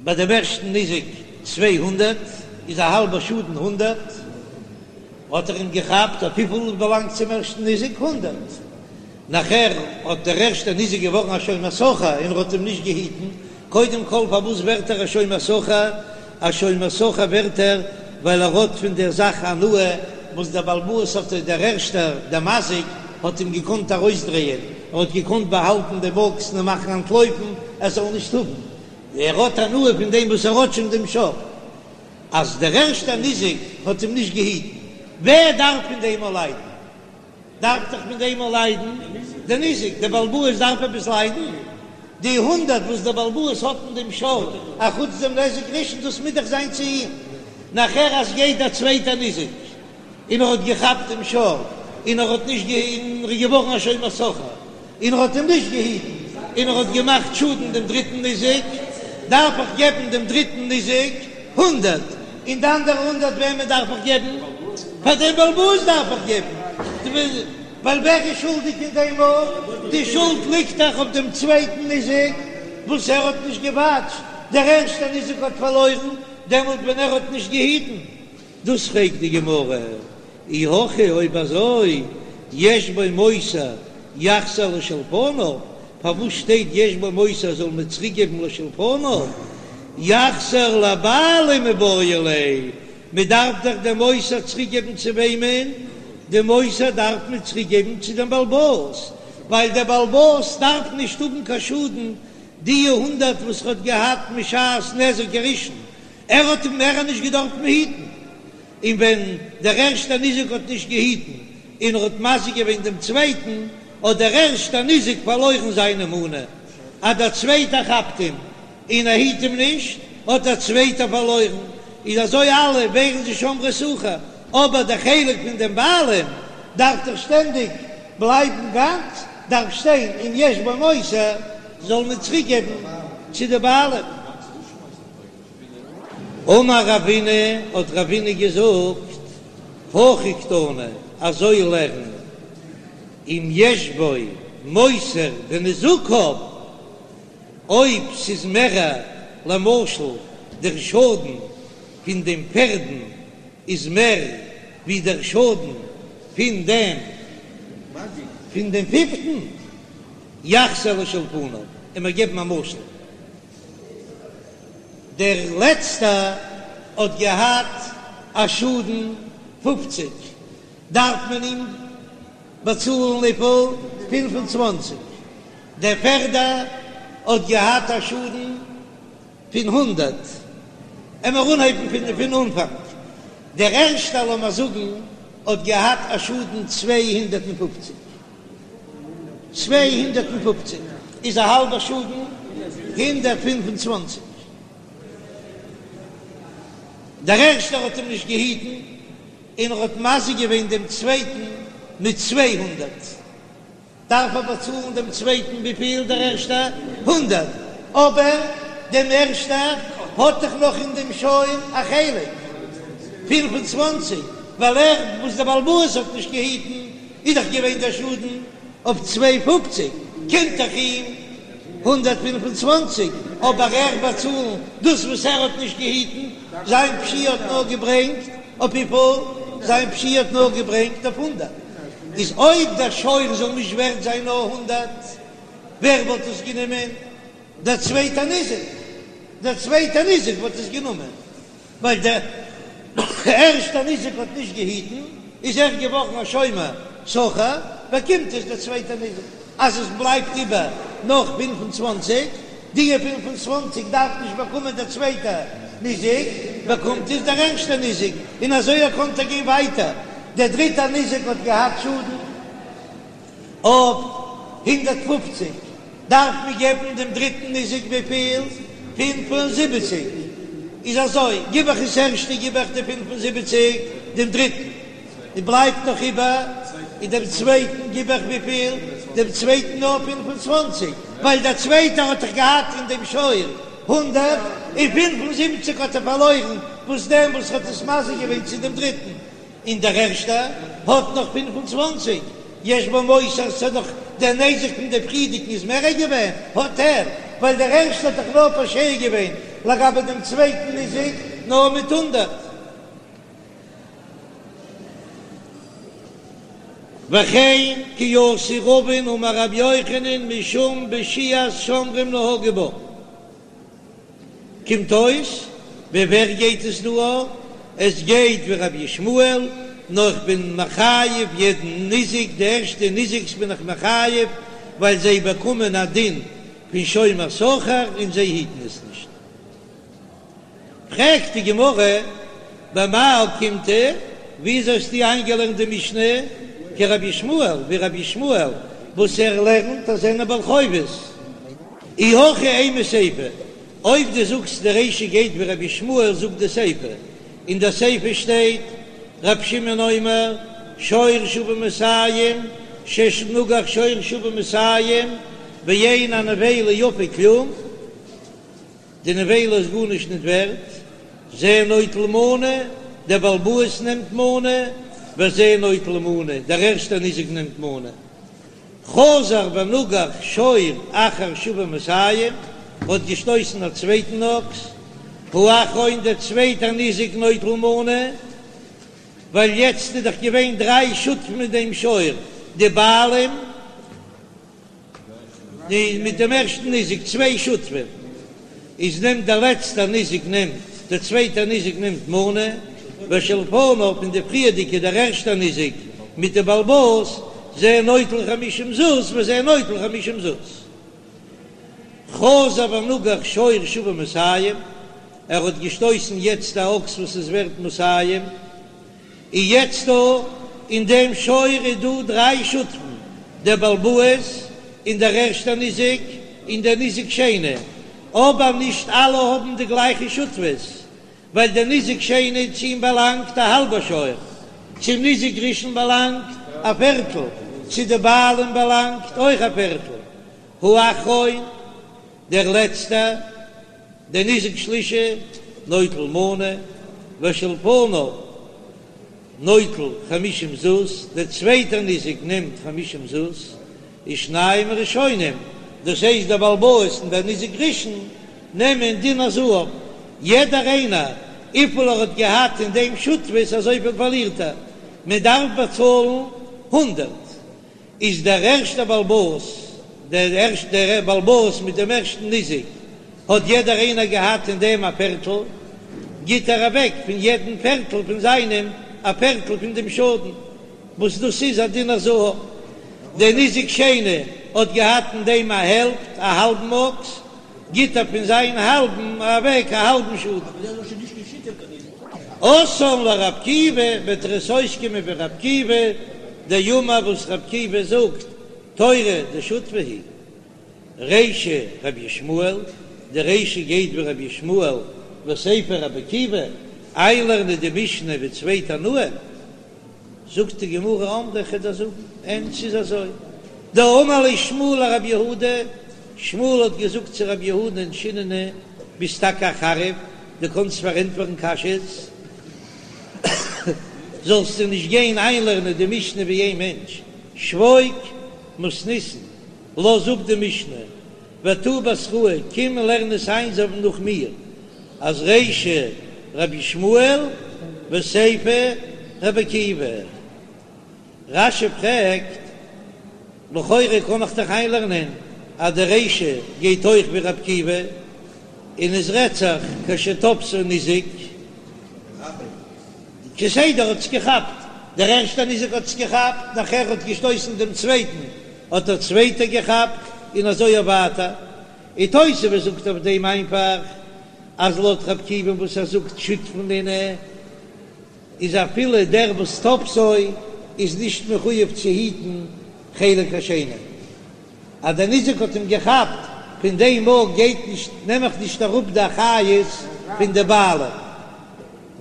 ביי דעם ערשטן ניזק 200, איז א האלבער שאדן הונדערט, האט ער אים געכאפט אויף וויפיל באלאנגט צום ערשטן ניזק? הונדערט. נאכער האט דער ערשטער ניזק געווארן א שומר שכר און ער האט אים נישט געהיטן, קודם כל פארוואס ווערט ער א שומר שכר? א שומר שכר ווערט ער ווייל ער האט פון דער זאך הנאה וואס דער בעל הבית האט, דער ערשטער, דער מזיק, האט אים געקאנט ארויסדרייען, ער האט געקאנט באהאלטן דעם אקס און מאכן אנטלויפן ער זאל נישט האבן, ער האט הנאה פון דעם וואס ער האט שוין דעם שור, אז דער ערשטער ניזק האט אים נישט געהיטן, ווער דארף פון דעם אויך ליידן? דארף דאך פון דעם אויך ליידן דער ניזק, דער בעל הבית דארף עפעס ליידן? די הונדערט וואס דער בעל הבית האט אין דעם שור, אחוץ דעם נזק ראשון, דאס מוז דאך זיין צו אים. נאכער אז גייט דער צווייטער ניזק און ער האט געכאפט דעם שור און ער האט נישט גע און ער איז געווארן א שומר שכר און ער האט אים נישט געהיטן און ער האט געמאכט שאדן דעם דריטן ניזק, דארף איך געבן דעם דריטן ניזק הונדערט, און די אנדערע הונדערט וועמען דארף איך געבן? פאר דעם בעל הבית דארף איך געבן, ווייל ווער איז שולדיג אין דעם מאל? די שולד ליגט דאך אויף דעם צווייטן ניזק וואס ער האט נישט געוואטשט, דער ערשטער ניזק האט פארלוירן דעמאלט ווען ער האט נישט געהיטן. דאס פרעגט די גמרא, אי הכי אויב אזוי יש בו מותר יחזיר לשלפניו, פארוואס שטייט יש בו מותר זאל מען צוריק געבן לשלפניו, יחזיר לבעלים מיבעי ליה, מען דארף דאך דעם מותר צוריק געבן צו וועמען? דעם מותר דארף מען צוריק געבן צו דעם בעל הבית, ווייל דער בעל הבית דארף נישט האבן קיין שאדן די הונדערט וואס ער האט געהאט משעת נזק הראשון, ער האט אים מער נישט געדארפט היטן, און ווען דער ערשטער ניזק האט נישט געהיטן און ער האט מזיק געווען דעם צווייטן, האט דער ערשטער ניזק פארלוירן זיינע מנה, אז דער צווייטער כאפט אים און ער היט אים נישט, האט דער צווייטער פארלוירן, איז אזוי אלע ווערן זיי שומרי שכר, אבער דער חלק פון דעם בעלים דארף דאך שטענדיג בלייבן גאנץ, דארף שטיין אם יש בו מותר זאל מען צוריק געבן צו די בעלים. אמר רבינא, האט רבינא געזאגט, הכי קתני, אזוי לערן, אם יש בו מותר בנזקיו, אויב ס'איז מערער, למשל דער שאדן פון דעם פערדן איז מער ווי דער שאדן פון דעם פון דעם פיפטן, יחזיר לשלפניו, און מיר געבן א משל. דער לעצטער האט געהאט א שאדן פופציג, דארף מען אים באצאלן וויפיל? 25. דער פערדער האט געהאט א שאדן. פון הונדרעט. עמער אנהייבן פון פון אנפאנג. דער ערשטער לאמער זאגן האט געהאט א שאדן 250. 250 איז א האלבע שאדן 125. דער ערשטער האט אים נישט געהיטן און ער האט מזיק געווען דעם צווייטן מיט 200. דארף ער באצאלן דעם צווייטן וויפיל דער ערשטער? הונדרעט, אבער דעם ערשטער האט דאך נאך אין דעם שור א חלק, 25, ווייל ער וואס דער בעל הבית האט נישט געהיטן איז דאך געווען דער שאדן אויף צוויי פופציג, קומט דאך אים 125, אבער ער באצאלן דאס וואס ער האט נישט געהיטן, זיין פשיעה האט נאר געברענגט אויף וויפיל? זיין פשיעה האט נאר געברענגט אויף הונדרעט. איז אויב דער שור זאל נישט ווערט זיין נאר הונדרעט, ווער וואלט עס גענומען? דער צווייטער ניזק, דער צווייטער ניזק וואלט עס גענומען, ווייל דער ערשטער ניזק האט נישט געהיטן, איז ער געווארן א שומר שכר, באקומט עס דער צווייטער ניזק. אז עס בלייבט איבער נאך 25, די 25 דארף נישט באקומען דער צווייטער ניזק, באקומט עס דער ערשטער ניזק, און אזוי ער קען גיין ווייטער. דער דריטער ניזק האט געהאט שאדן אויף 150, דארף מען געבן דעם דריטן ניזק וויפיל? 75. איז אזוי, גיב איך עס ערשטע גיב איך די 75 דעם דריטן. און בלייבט נאך איבער, און דעם צווייטן גיב איך וויפיל? דעם צווייטן נאר 25, ווייל דער צווייטער האט דאך געהאט אין דעם שור הונדרעט, און 75 האט ער פארלוירן, וואס דעם וואס האט עס מזיק געווען צו דעם דריטן, און דער ערשטער האט נאך 25, יש בו מותר, ס'איז דאך דער נזק פון דעם פריערדיגן איז מערער געווען, האט ער, ווייל דער ערשטער האט דאך נאר פושע געווען לגבי דעם צווייטן ניזק נאר מיט הונדרעט. וכן כי אתא רבין אמר רבי יוחנן משום פשיעת שומרים נהגו בה. קומט אויס ווי ווער גייט עס דא א? עס גייט ווי רבי ישמעאל, נאר איך בין מחייב יעדן ניזק, די ערשטע ניזק'ס בין איך מחייב ווייל זיי באקומען א דין פון שומר שכר און זיי היטן עס נישט. פרעגט די גמרא, במאי אוקימתא, וויאזוי האסטו איינגעלערנט די משנה כרבי ישמעאל, ווי רבי ישמעאל וואס ער לערנט אז זענען בעל חובות? אי הכי אימא סיפא, אויב דו זאגסט די רישא גייט ווי רבי ישמעאל זאגט די סיפא, אין די סיפא שטייט רבי שמעון אומר שור שוה מאתים שנגח שור שוה מאתים ואין הנבילה יפה כלום, די נבילה איז גארנישט ניט ווערט, זה נוטל מנה, דער בעל הבית נעמט מנה, וזה נוטל מנה, דער ערשטער ניזק נעמט מנה. חזר ונגח שור אחר שוה מאתים, האט געשטויסן א צווייטן אקס, האחרון דער צווייטער ניזק נוטל מנה, ווייל יעצט איז דאך געווען דריי שותפים מיט דעם שור, די בעלים, די מיט דעם ערשטן ניזק צוויי שותפים איז נעמט דער לעצטער ניזק נעמט דער צווייטער ניזק נעמט מנה ושלפניו און די פריערדיגע דער ערשטער ניזק מיט די בעל הבית זה נוטל חמישים זוז וזה נוטל חמישים זוז חזר ונגח שור שוה מאתים ער האט געשטויסן יעצט א אקס וואס איז ווערט מאתים. און יעצט דא אין דעם שור איז דא דריי שותפים, דער בעל הבית און דער ערשטער ניזק און דער ניזק שני, אבער נישט אלע האבן די גלייכע שותפות, ווייל דער ניזק שני צו אים באלאנגט א האלבע שור, צום ניזק ראשון באלאנגט א פערטל, צו די בעלים באלאנגט אויך א פערטל, האחרון דער לעצטער. דער ניזק שלישי נוטל מנה, ושלפניו נוטל חמישים זוז, דער צווייטער ניזק נעמט חמישים זוז, ושנים הראשונים, דאס הייסט דער בעל הבית און דער ניזק ראשון, נעמען דינר זהב, יעדער איינער וויפיל ער האט געהאט אין דעם שותפות אזויפיל פארלירט ער, מען דארף באצאלן הונדערט. איז דער ערשטער בעל הבית, דער ערשטער בעל הבית מיט דעם ערשטן ניזק, האט יעדער איינער געהאט אין דעם א פערטל, גיט ער אוועק פון יעדן פערטל פון זיינעם א פערטל פון דעם שאדן, וואס דאס איז א דינר זהב. דער ניזק שני האט געהאט אין דעם א העלפט, א האלבן אקס. גיט ער פון זיין האלבן אוועק א האלבן שאדן. אתאן לר' עקיבא, וועט ער עס אויסקומען ווי ר' עקיבא, דאמר וואס ר' עקיבא זאגט, תורא דשותפי הוא. רישא רבי ישמעאל, די רישא גייט ווי רבי ישמעאל וסיפא רבי עקיבא, איינלערנען די משנה ווי צוויי תנאים, זאגט די גמרא אמרי כ'וועל דיר זאגן, אין ס'איז אזוי, דאמר ליה שמואל לרב יהודה, שמואל האט געזאגט צו רב יהודה'ן שיננא, ביסט טאקע א חריף, דו קאנסט פארענטפערן קשיות, זאלסטו נישט גיין איינלערנען די משנה ווי איין מענטש, שבוק מתניתין, לאז אפ די משנה, ותא בתראי, קום און לערן עס איין אזוי נאך מיר, אז רישא רבי ישמעאל וסיפא רבי עקיבא. רש"י פרעגט, לכאורה קען איך דאך איינלערנען אז די רישא גייט אויך ווי רבי עקיבא, און עס רעדט זיך כשתפסו ניזק. כסדר האט עס געכאפט, דער ערשטער ניזק האט עס געכאפט, נאכער האט געשטויסן דעם צווייטן, האט דער צווייטער געכאפט, און אזוי אויף ווייטער. און תוספות זאגט אויף דעם איינפאך, אז לויט ר' עקיבא וואס ער זאגט שותפין נינהו, איז אפילו דער וואס תפסו איז נישט מחויב צו היטן חלק השני. אז דער ניזק האט אים געכאפט, פון דעם מאל גייט נישט, נעם איך נישט אראפ די אחריות פון די בעלים.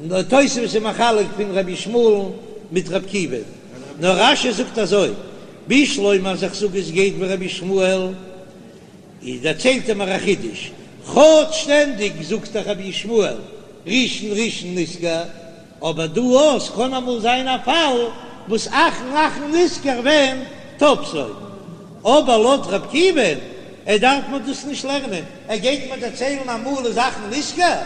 נאר תוספות איז מחלק פון רבי ישמעאל'ן מיט ר' עקיבא, נאר רש"י זאגט אזוי, בשלמא אז איך זאג עס גייט ווי רבי ישמעאל, איז דערציילט ער מיר א חידוש, כאטש שטענדיג זאגט דאך רבי ישמעאל ראשון ראשון נשכר, אבער דא אויס קען אמאל זיין א פאל וואס אחרון אחרון נשכר ווען תפסו. אבער לויט ר' עקיבא'ן ער דארף מען דאס נישט לערנען, ער גייט מיר דערציילן אמאל איז אחרון נשכר,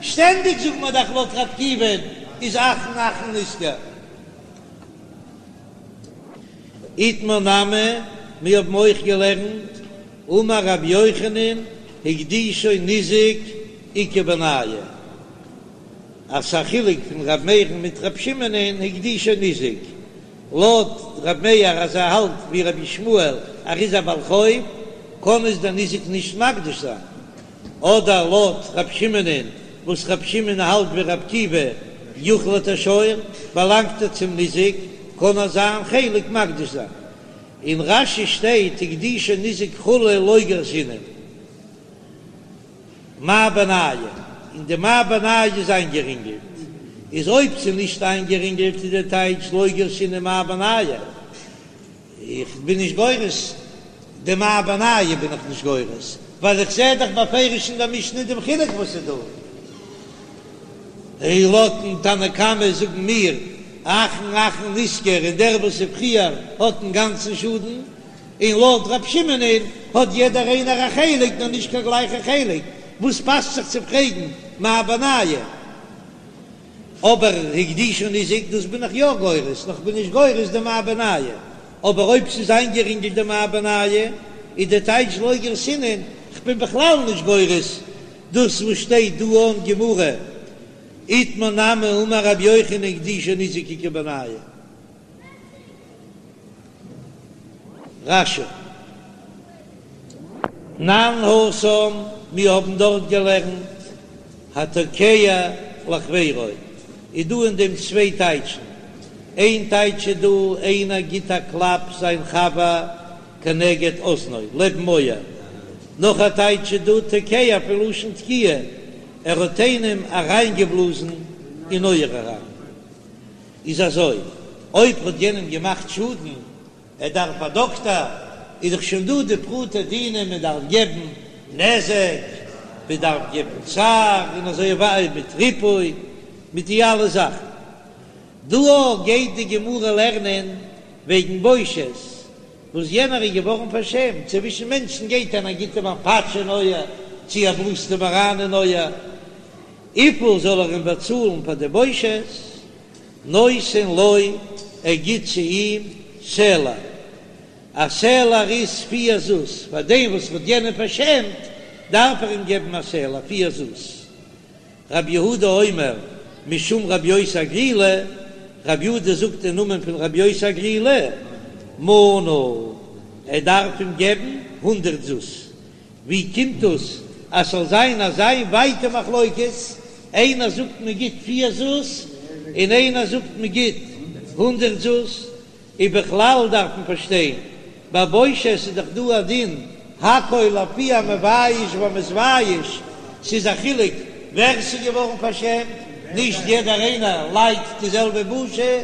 שטענדיג זאגט מען דאך לויט ר' עקיבא'ן איז אחרון אחרון נשכר. איתמר נמי, מיר האבן אויך געלערנט, אמר רבי יוחנן, הקדישו ניזק איכא בינייהו, אז ס'א חילוק פון ר' מאיר'ן מיט ר' שמעונ'ען הקדישו ניזק, לויט ר' מאיר אז ער האלט ווי רבי ישמעאל ער איז א בעל חוב קען עס דער ניזק נישט מקדיש זיין, אדער לויט ר' שמעונ'ען וואס ר' שמעון האלט ווי ר' עקיבא יוחלט השור באלאנגט ער צום ניזק קען ער זיין חלק מקדיש זיין. אין רש"י שטייט הקדישו ניזק כו' לא גרסינן. מאי בינייהו, און די מאי בינייהו איז איינגערינגלט, איז אויב ס'איז נישט איינגערינגלט איז די טייטש לא גרסינן מאי בינייהו, איך בין נישט גורס די מאי בינייהו בין איך נישט גורס, ווייל איך זע דאך בפירוש אין די משנה דעם חילוק וואס איז דא. און לויטן תנא קמא זאגן מיר אחרון אחרון נשכר און דער וואס איז פריער האט אינגאנצן שאדן. און לויט רב שמעונ'ען האט יעדער איינער א חלק נאר נישט קיין גלייכע חלק, וואס פאסט זיך צו פרעגן מאי בינייהו? אבער הקדישו ניזק דאס בין איך יא גורס, נאר כ'בין נישט גורס די מאי בינייהו, אבער אויב ס'איז איינגערינגלט די מאי בינייהו איז די טייטש לא גרסינן, כ'בין בכלל נישט גורס דאס וואס שטייט דא אין גמרא, איתמר נמי אמר רבי יוחנן הקדישו ניזק איכא בינייהו. רש"י. תנן התם, מיר האבן דארט געלערנט, התוקע לחבירו, איז דא אין דעם צוויי טייטשן, איין טייטש איז דא, איינער גיט א קלאפ זיין חבר כנגד אזנו, לעבן אויער, נאך א טייטש איז דא, תוקע פון לשון תקיעה, ער האט איינעם אריינגעבלאזן אין אויער אריין. איז אזוי, אויב האט יענעם געמאכט שאדן, ער דארף א דאקטאר, איז דאך שוין דא די פרטי דינים, מען דארף געבן נזק, מען דארף געבן צער, און אזוי ווייטער, מיט ריפוי, מיט די אלע זאכן. דא גייט די גמרא לערנען וועגן בושת, וואס יענער איז געווארן פארשעמט, צווישן מענטשן גייט איינער גיט אים א פאטש אין אויער, צי ער בלאזט אים אריין אין אויער, וויפיל זאל ער אים באצאלן פאר די בושת? נותן לו, ער גיט צו אים סלע, א סלע איז פיר זוז, פאר דעם וואס האט יענעם פארשעמט דארף ער אים געבן א סלע פיר זוז. רבי יהודה אומר משום רבי יוסי הגלילי, רבי יהודה זאגט אין נאמען פון רבי יוסי הגלילי, מנה, ער דארף אים געבן הונדרעט זוז. ווי קומט דאס? אז ס'זאל זיין אזא ווייטע מחלוקת, איינער זאגט מען גיט פיר זוז און איינער זאגט מען גיט הונדרעט זוז, ובכלל דארף מען פארשטיין, ביי בושת איז דאך דא א דין הכל לפי המבייש והמתבייש, ס'איז א חילוק ווער ס'איז געווארן פארשעמט, נישט יעדער איינער ליידט די זעלבע בושה,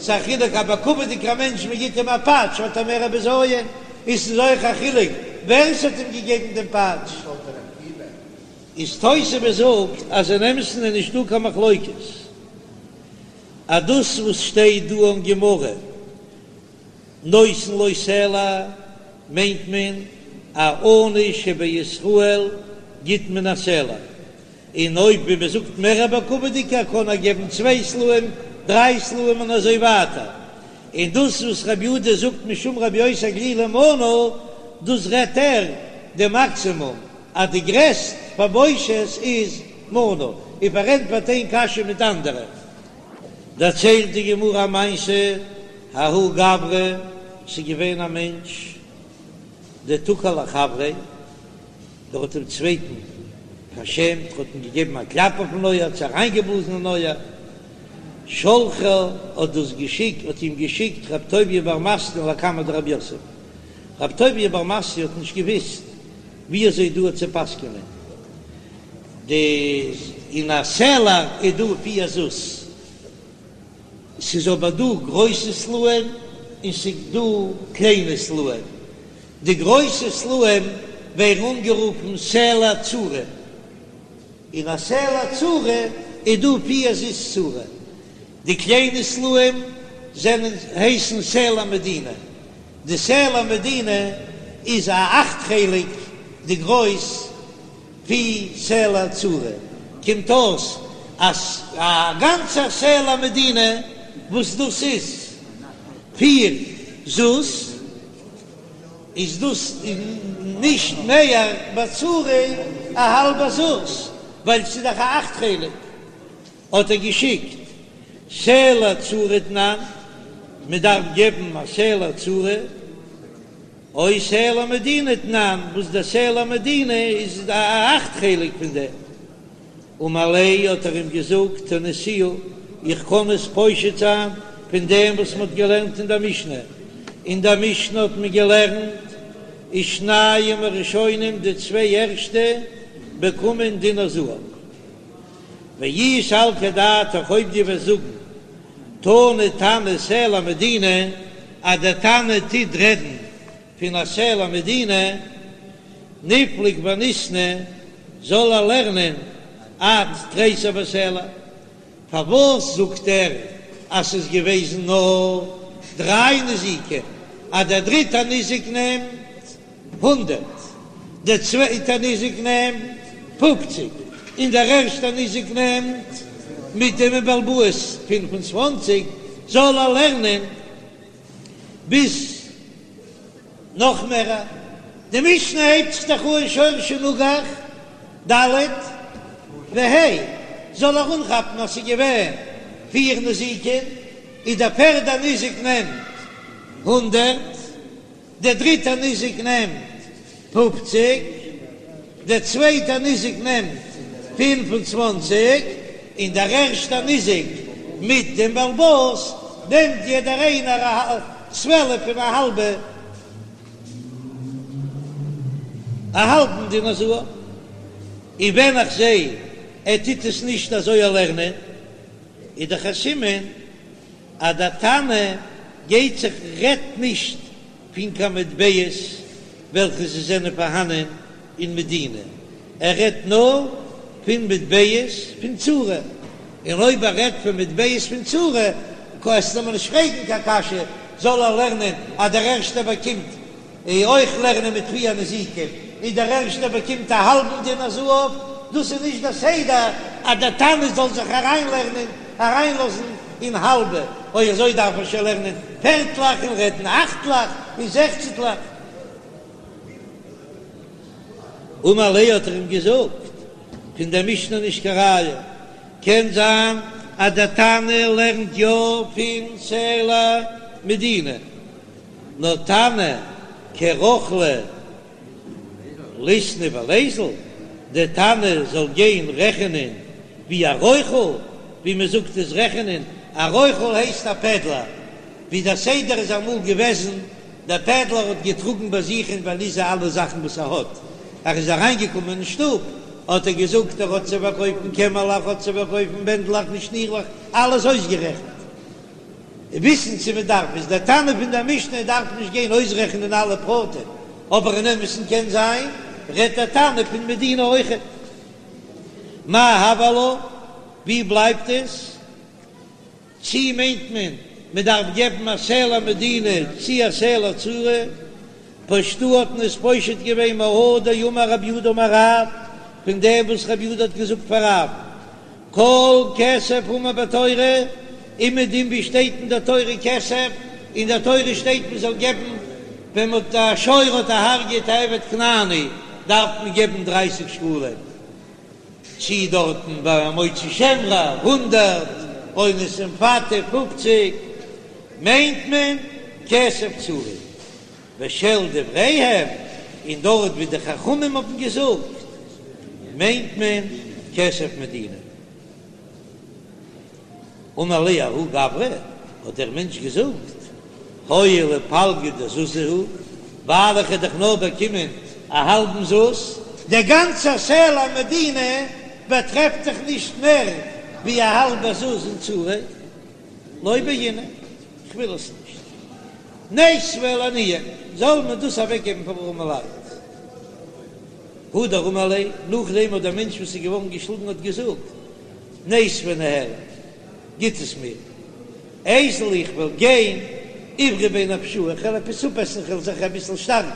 ס'איז א חילוק א בכבוד'יגער מענטש מ'גיט אים א פאטש האט ער מער א בזיון, און ס'איז אויך א חילוק ווער ס'האט אים געגעבן דעם פאטש. איז תוספות זאגט אז אין אמת'ן איז נישטא קיין מחלוקת. אז דאס וואס שטייט דא אין גמרא נותן לו סלע מיינט מען א עני שבישראל גיט מען א סלע, און אויב ווי מען זאגט מער א בכבוד'יגער קען ער געבן צוויי סלעים, דריי סלעים און אזוי ווייטער, און דאס וואס רבי יהודה זאגט משום רבי יוסי הגלילי מנה דאס רעדט ער די מאקסימום אז די גרעסט פאר בושת איז מנה, און פארענטפערט איין קשיא מיט אנדערע. דערציילט די גמרא א מעשה, ההוא גברא, ס'איז געווען א מענטש דתקע לחבריה, דער האט דעם צווייטן פארשעמט, האט אים געגעבן א קלאפ אויפן אויער, צו אריינגעבלאזן אין אויער, שלחיה האט דאס געשיקט, האט אים געשיקט רב טוביה בר מתנה לקמיה דרב יוסף, רב טוביה בר מתנה האט נישט געוויסט ווי אזוי דא צו פסק'נען די אין א סלע איז דא פיר זוז, ס'איז אבער דא גרויסע סלעים און ס'איז דא קליינע סלעים, די גרויסע סלעים ווערן אנגערופן סלע צורי, אין א סלע צורי איז דא פיר זוז צורה, די קליינע סלעים זענען הייסן סלע מדינה. די סלע מדינה איז א אכט חלק די גרויס פון סלע צורי, קומט אויס אז א גאנצע סלע מדינה וואס דאס איז פיר זוז איז דאס נישט מער בצורי א האלבע זוז ווייל ס'איז דאך א אכט חלק. האט ער געשיקט סלע צורי תנן, מען דארף געבן א סלע צורי, או סלע מדינה תנן, וואס דער סלע מדינה איז א אכט חלק פון דעם. אמר ליה האט ער אים געזאגט תניתוה, איך קען עס פושט זיין פון דעם וואס מען האט געלערנט אין דער משנה, אין דער משנה האט מען געלערנט ושניים הראשונים די צוויי ערשטע באקומען דינר זהב. ואי סלקא דעתך אויב דו וועסט זאגן תני תנא סלע מדינה אז דער תנא טוט רעדן פון א סלע מדינה ניפלוג וניתני זאל ער לערנען עד תריסר בסלע פארוואס זאגט ער אז ס'איז געוועזן נאר דריי נזיקין אז דער דריטער ניזק נעמט הונדרעט, דער צווייטער ניזק נעמט פופציג, און דער ערשטער ניזק נעמט מיט דעם בעל הבית 25, זאל ער לערנען ביז נאך מער. די משנה הייבט זיך דאך אן שור שנגח ד' וה', זאל ער אנכאפן אז ס'איז געווען פיר נזיקין, און דער פערדער ניזק נעמט הונדרעט. דער דריטער ניזק נעמט פופציג, דער צווייטער ניזק נעמט 25, און דער ערשטער ניזק מיט דעם בעל הבית נעמט יעדער איינער א צוועלף און א האלבע א האלבן דינר זהב. און ווען איך זע ער טוט עס נישט אזוי לערנען, איז דאך א סימן אז דער תנא גייט זיך רעדט נישט פון קיין מטבעות וועלכע זיי זענען פארהאנען אין מדינה, ער רעדט נאר פון מטבעות פון צורי, און אויב ער רעדט פון מטבעות פון צורי קענסטו מיר נישט פרעגן קיין קשיא, זאל ער לערנען אז דער ערשטער באקומט אויך לערנען מיט פיר נזיקים, און דער ערשטער באקומט א האלבן דינר זהב, דאס איז נישט דער סדר אז דער תנא זאל זיך אריינלערנען, אריינלאזן אין האלבע, אויב אזוי דארף ער שוין לערנען פערטלעך און רעדן אכטלעך און זעכצנטלעך. אמר ליה האט ער אים געזאגט, פון דער משנה נישט קיין ראיה, קען זיין אז דער תנא לערנט יא פון סלע מדינה. נאר תנא כרוכלא ליתני וליזיל. דער תנא זאל גיין רעכענען ווי א רוכל, ווי מען זאגט עס רעכענען, א רוכל הייסט א פעדלער, ווי דער סדר איז אמאל געוועזן, דער פעדלער האט געטראגן ביי זיך אין וואליזע אלע זאכן וואס ער האט, ער איז אריינגעקומען אין שטוב האט ער געזאגט ער האט צו פארקויפן קעמעלעך, האט צו פארקויפן בענדלעך און שנירלעך, אלעס אויסגערעכנט. וויסן צו מען דארף איז דער תנא פון דער משנה דארף נישט גיין אויסרעכענען אלע פרטים, אבער אין אמת'ן קען זיין רעדט דער תנא פון מדינה אויכעט. מאי הוי עלה? ווי בלייבט עס? צי מיינט מען מען דארף געבן א סלע מדינה צי א סלע צורי? פשטוה האט מען עס פושט געווען מהא דאמר רב יהודה אמר רב, פון דעם וואס רב יהודה האט געזאגט פאר רב, כל כסף האמור בתורה, אומעדום ווי שטייט אין דער תורה כסף, אין דער תורה שטייט מען זאל געבן ווען מען האט א שור האט דערהרגעט א עבד כנעני דארף מען געבן דרייסיג שקלים, צי דארטן ביי מוציא שם רע הונדערט, אונס ומפתה פופציג, מיינט מען כסף צורי. ושל דבריהם, און דארט ווי די חכמים האבן געזאגט, מיינט מען כסף מדינה. אמר ליה ההוא גברא, האט דער מענטש געזאגט, הואיל ופלגא דזוזא הוא, ווייל איך האב דאך נאר באקומען א האלבן זוז, דער גאנצער סלע מדינה באטרעפט זיך נישט מער ווי א האלבע זוז אין צורי, לא בעינא, כ'וויל עס נישט. ניתביה לעניים, זאל מען דאס אוועקגעבן פאר ארעמע לייט. הדר אמר ליה, נאכדעם האט דער מענטש וואס איז געווארן געשלאגן האט געזאגט, ניתביה ניהלי, גיט עס מיר, איזיל איך וועל גיין, איברי ביה נפשאי, איך וועל עפעס אפעסן, איך וועל זיך אביסל שטארקן.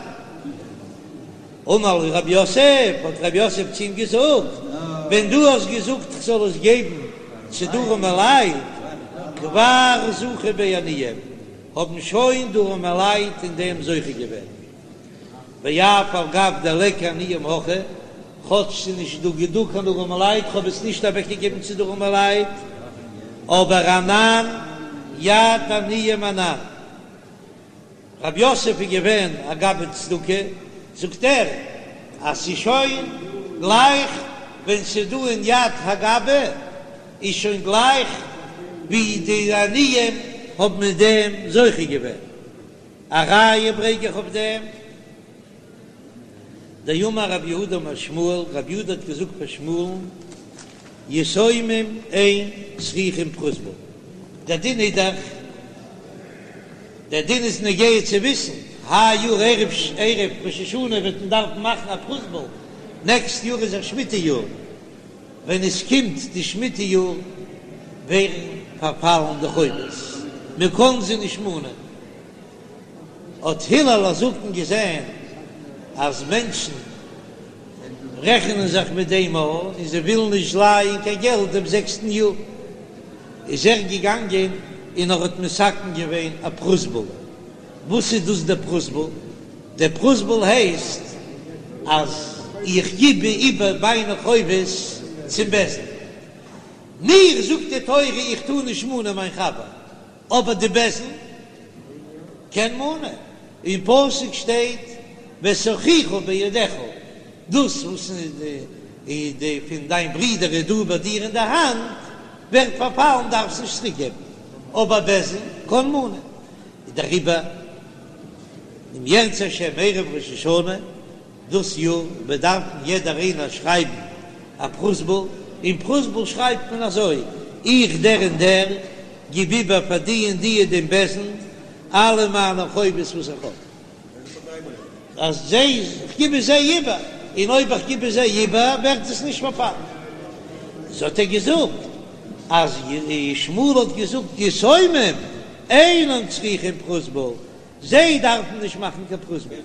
אמר לו רב יוסף, האט רב יוסף צו אים געזאגט, ווען דו האסט געזאגט איך זאל עס געבן צו די ארעמע לייט, כבר זכו ביה עניים, האבן שוין די ארעמע לייט אין דעם זוכה געווען. ואף על גב דליכא עניים הכא, כאטש ס'איז נישט דא דא קיין ארעמע לייט, כ'האב עס נישט אוועקגעגעבן צו די ארעמע לייט, אבער אנן יד עניים אנן. רב יוסף איז געווען א גבאי צדקה, זאגט ער אז ס'איז שוין גלייך ווען ס'איז דא אין יד הגבאי איז שוין גלייך ווי די עניים האבן מיט דעם זוכה געווען. א ראיה ברענג איך אויף דעם, דאמר רב יהודה אמר שמואל, רב יהודה האט געזאגט פאר שמואל'ן, יתומים אין צריכים פרוזבול, דער דין איז דאך, דער דין איז נוגע צו וויסן, היי יאר ערב ערב ראש השנה וועט מען דארפן מאכן א פרוזבול, נעקסט יאר איז א שמיטה יאר, ווען עס קומט די שמיטה יאר ווערן פארפאלן די חובות, מען קען זיי נישט מאנען. האט הלל הזקן געזען אז מענטשן רעכענען זיך מיט דעם און זיי ווילן נישט לייען קיין געלט דעם זעקסטן יאר, איז ער געגאנגען און ער האט מתקן געווען א פרוזבול. וואס איז דאס דער פרוזבול? דער פרוזבול הייסט אז איך גיב איבער מיינע חובות צום בית דין. מיר זאגט די תורה איך טאר נישט מאנען מיין חבר, אבער די בית דין קען מאנען, אין פסוק שטייט ואת אחיך בידך, דאס וואס איז די פון דיין ברודער איז דא ביי דיר אין די האנט ווערט פארפאלן דארפסט נישט צוריק געבן, אבער בית דין קען מאנען, דעריבער אם ירצה השם ערב ראש השנה דאס יאר וועט דארפן יעדער איינער שרייבן א פרוזבול, אין פרוזבול שרייבט מען אזוי, איך דער און דער גיב איבער פאר די און די דעם בית דין אלע מיינע חובות וואס איך האב, אז זיי, איך גיב עס זיי איבער, און אויב איך גיב עס זיי איבער ווערט עס נישט פארפאלן. איז האט ער געזאגט אז שמואל האט געזאגט יתומים אינן צריכים פרוזבול, זיי דארפן נישט מאכן קיין פרוזבול,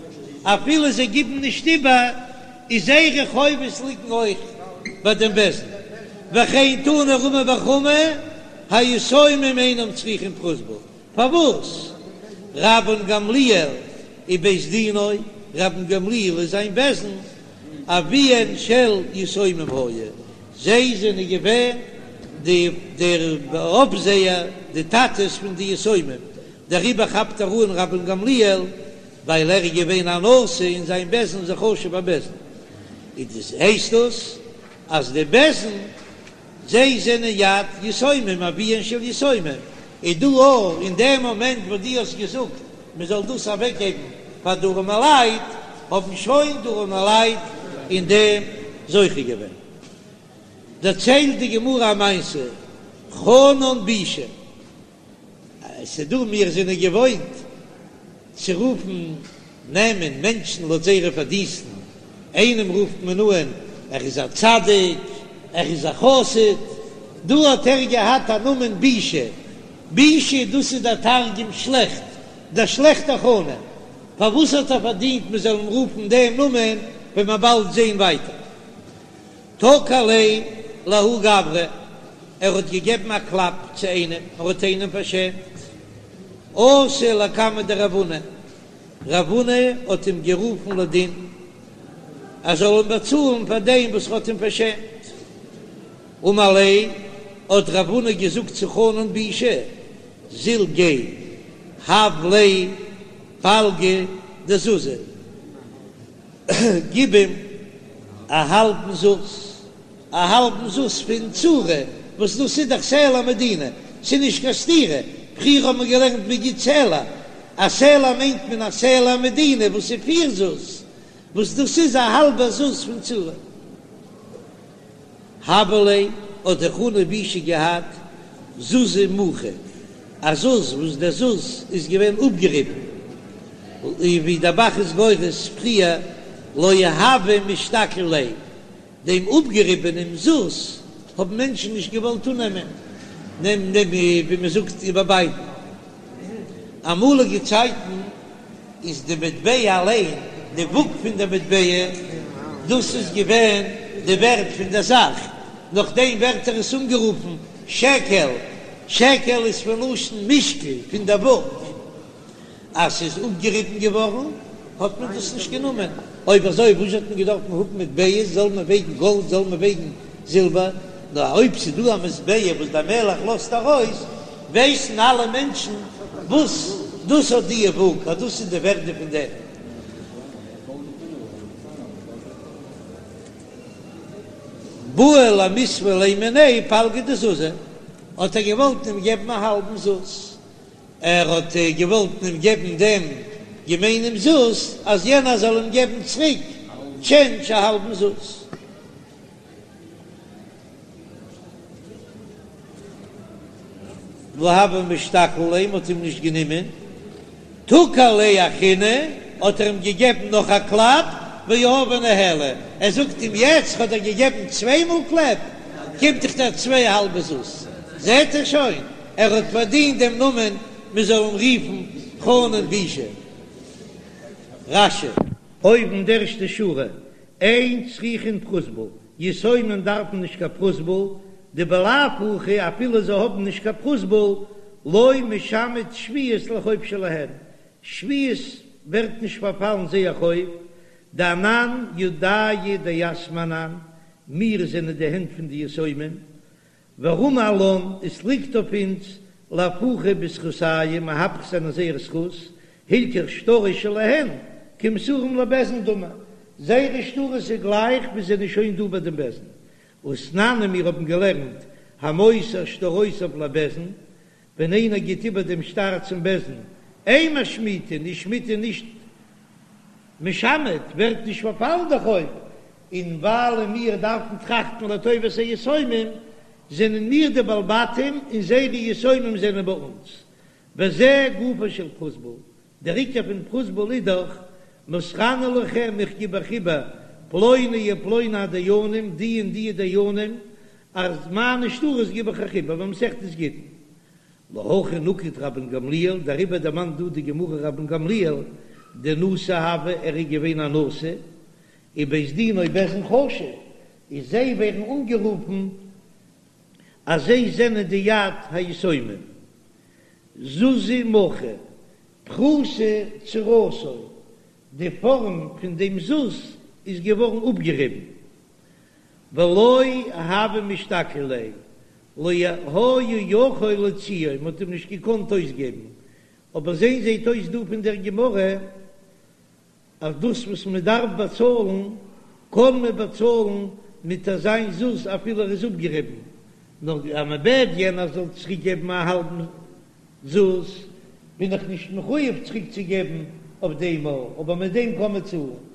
אפילו זיי גיבן נישט איבער, איז זייערע חובות ליגן אויך ביי דעם בית דין, וכן תנא רמי בר חמא, היתומים אינם צריכים פרוזבול, פארוואס? רבן גמליאל ובית דינו, רבן גמליאל און זיין בית דין, אביהן של יתומים היו, זיי זענען געווען די דער אויפזעער, די טאטעס פון די יתומים, דעריבער כאפט ער אן רבן גמליאל ווייל ער איז געווען א נשיא און זיין בית דין איז א חשוב'ער בית דין. איז דאס הייסט דאס אז די בית דין זיי זענען יד יתומים אביהן של יתומים, איז דא אויך אין דעם מאמענט וואס דו האסט געזאגט מען זאל דאס אוועק געבן פאר די ארעמעלייט, האבן שוין די ארעמעלייט אין דעם זוכה געווען. דערציילט די גמרא א מעשה, חנן בישא, ס'דא מיר זענען געוואוינט צו רופן נעמען מענטשן לויט זייערע פארדינסטן, איינעם רופט מען אן ער איז א צדיק, ער איז א חסיד, דא האט ער געהאט א נאמען בישא, בישא דאס איז דער תרגום שלעכט, דער שלעכטער חנן, פארוואס האט ער פארדינט מען זאל אים רופן דעם נאמען, וועט מען באלד זען ווייטער. תקע ליה לההוא גברא, ער האט געגעבן א קלאפ צו איינעם, ער האט איינעם פארשעמט. אתא לקמיה דרב הונא, רב הונא האט אים גערופן לדין, ער זאל אים באצאלן פאר דעם וואס ער האט אים פארשעמט. אמר ליה, האט רב הונא געזאגט צו חנן בישא, זיל גיי, הב ליה פלגא דזוזא. גיב אים א האלבן זוז, א האלבן זוז פון צורה, וואס דאס איז דאך סלע מדינה, ס'איז נישט קיין סתירה, פריער האט מען געלערנט מ'גיט סלע, א סלע מיינט מען א סלע מדינה וואס איז פיר זוז, וואס דאס איז א האלבע זוז פון צורה. הוה ליה האט דער חנן בישא געהאט זוזא מוכא, א זוז וואס דער זוז איז געווען אפגעריבן, און ווי דער ב"ח איז גורס פריער לא הוו משתקיל ליה, דעם אפגעריבענעם זוז האבן מענטשן נישט געוואלט אננעמען, נעם נעם ווי מען זאגט איבערבייטן. אמאליגע צייטן איז די מטבע אליין, די וואג פון די מטבע, דאס איז געווען די ווערט פון דער זאך, נאכדעם ווערט ער עס אנגערופן שקל, שקל איז פון לשון משקל, פון דער וואג. אז ס'איז אפגעריבן געווארן האט מען דאס נישט גענומען, אויב אזוי וואס האט מען געדארפט האבן מטבעות, זאל מען וועגן גאלד זאל מען וועגן זילבער, נאר אויב ס'איז דא א מטבע וואס דער מלך לאזט ארויס, ווייסן אלע מענטשן וואס דאס האט די וואג, אז דאס איז די ווערדע פון דעם. בעי למיתבא ליה מיניה פלגא דזוזא, האט ער געוואלט אים געבן א האלבן זוז, ער האט געוואלט אים געבן דעם געמיינעם זוז, אז יענער זאל אים געבן צוריק טשענדזש א האלבן זוז. לא הוו משתקיל ליה, מ'האט אים נישט גענומען, תקע ליה אחרינא, האט ער אים געגעבן נאך א קלאפ, ויהביה ניהליה, ער זאגט אים יעצט כ'האב דיר געגעבן צוויי מאל קלעפ, קומט דאך דיר צוויי האלבע זוז, זעט ער שוין, ער האט פארדינט דעם נאמען מען זאל אים רופן חנן בישא. רש"י. אויבן די ערשטע שורה, אין צריכין פרוזבול, יתומים דארפן נישט קיין פרוזבול, דבלאו הכי אפילו זיי האבן נישט קיין פרוזבול, לא משמט שביעית לחוב שלהן, שביעית ווערט נישט פארפאלן זייער חוב, דאנן ידייהו דיתמי אנן, מיר זענען די הענט פון די יתומים, ורמי עלן, עס ליגט אויף אונז לאהפוכי בזכותייהו מהפך זיין אין זייער זכות, הילכך שטרות שלהן כמסורים לבית דין דמי, זייערע שטרות איז גלייך ווי זענען שוין דא ביי דעם בית דין. ותנן און מיר האבן געלערנט המוסר שטרותיו לבית דין, ווען איינער גיט איבער דעם שטר צום בית דין, אין משמיטין, איז שמיטה נישט משמט, ווערט נישט פארפאלן דער חוב, און ווייל מיר דארפן טראכטן לטובת היתומים, זענען מיר די בעלי בתים און זיי די יתומים זענען ביי אונז. וזה גופו של פרוזבול, דער עיקר פון פרוזבול איז דאך, מוסרני לכם, איך גיב אייך איבער, פלוני ופלוני הדיינים, די און די דיינים, אז מיינע שטרות גיב איך אייך איבער, במסכת גיטין. להכי נקט רבן גמליאל, דעריבער דערמאנט דא די גמרא רבן גמליאל, דנשיא הוה, ער איז געווען א נשיא, ובית דינו בית דין חשוב, איז זיי ווערן אנגערופן אז זיי זענען די יד היתומים. זוזא מוכא, פחותה צורתו, די פארעם פון דעם זוז איז געווארן אפגעריבן. ולא הוו משתקיל ליה, לא היה יכול להוציאו, מען האט אים נישט געקאנט אויסגעבן. אבער זעהן זעהט אויס דא פון דער גמרא אז דאס וואס מען דארף באצאלן. קען מען באצאלן מיט אזיין זוז אפילו ער איז אפגעריבן, נאר אז מען בעט יענער זאל צוריק געבן א האלבן זוז, בין איך נישט מחויב צוריק צו געבן אויף דעם, אבער מיט דעם קען מען צאלן.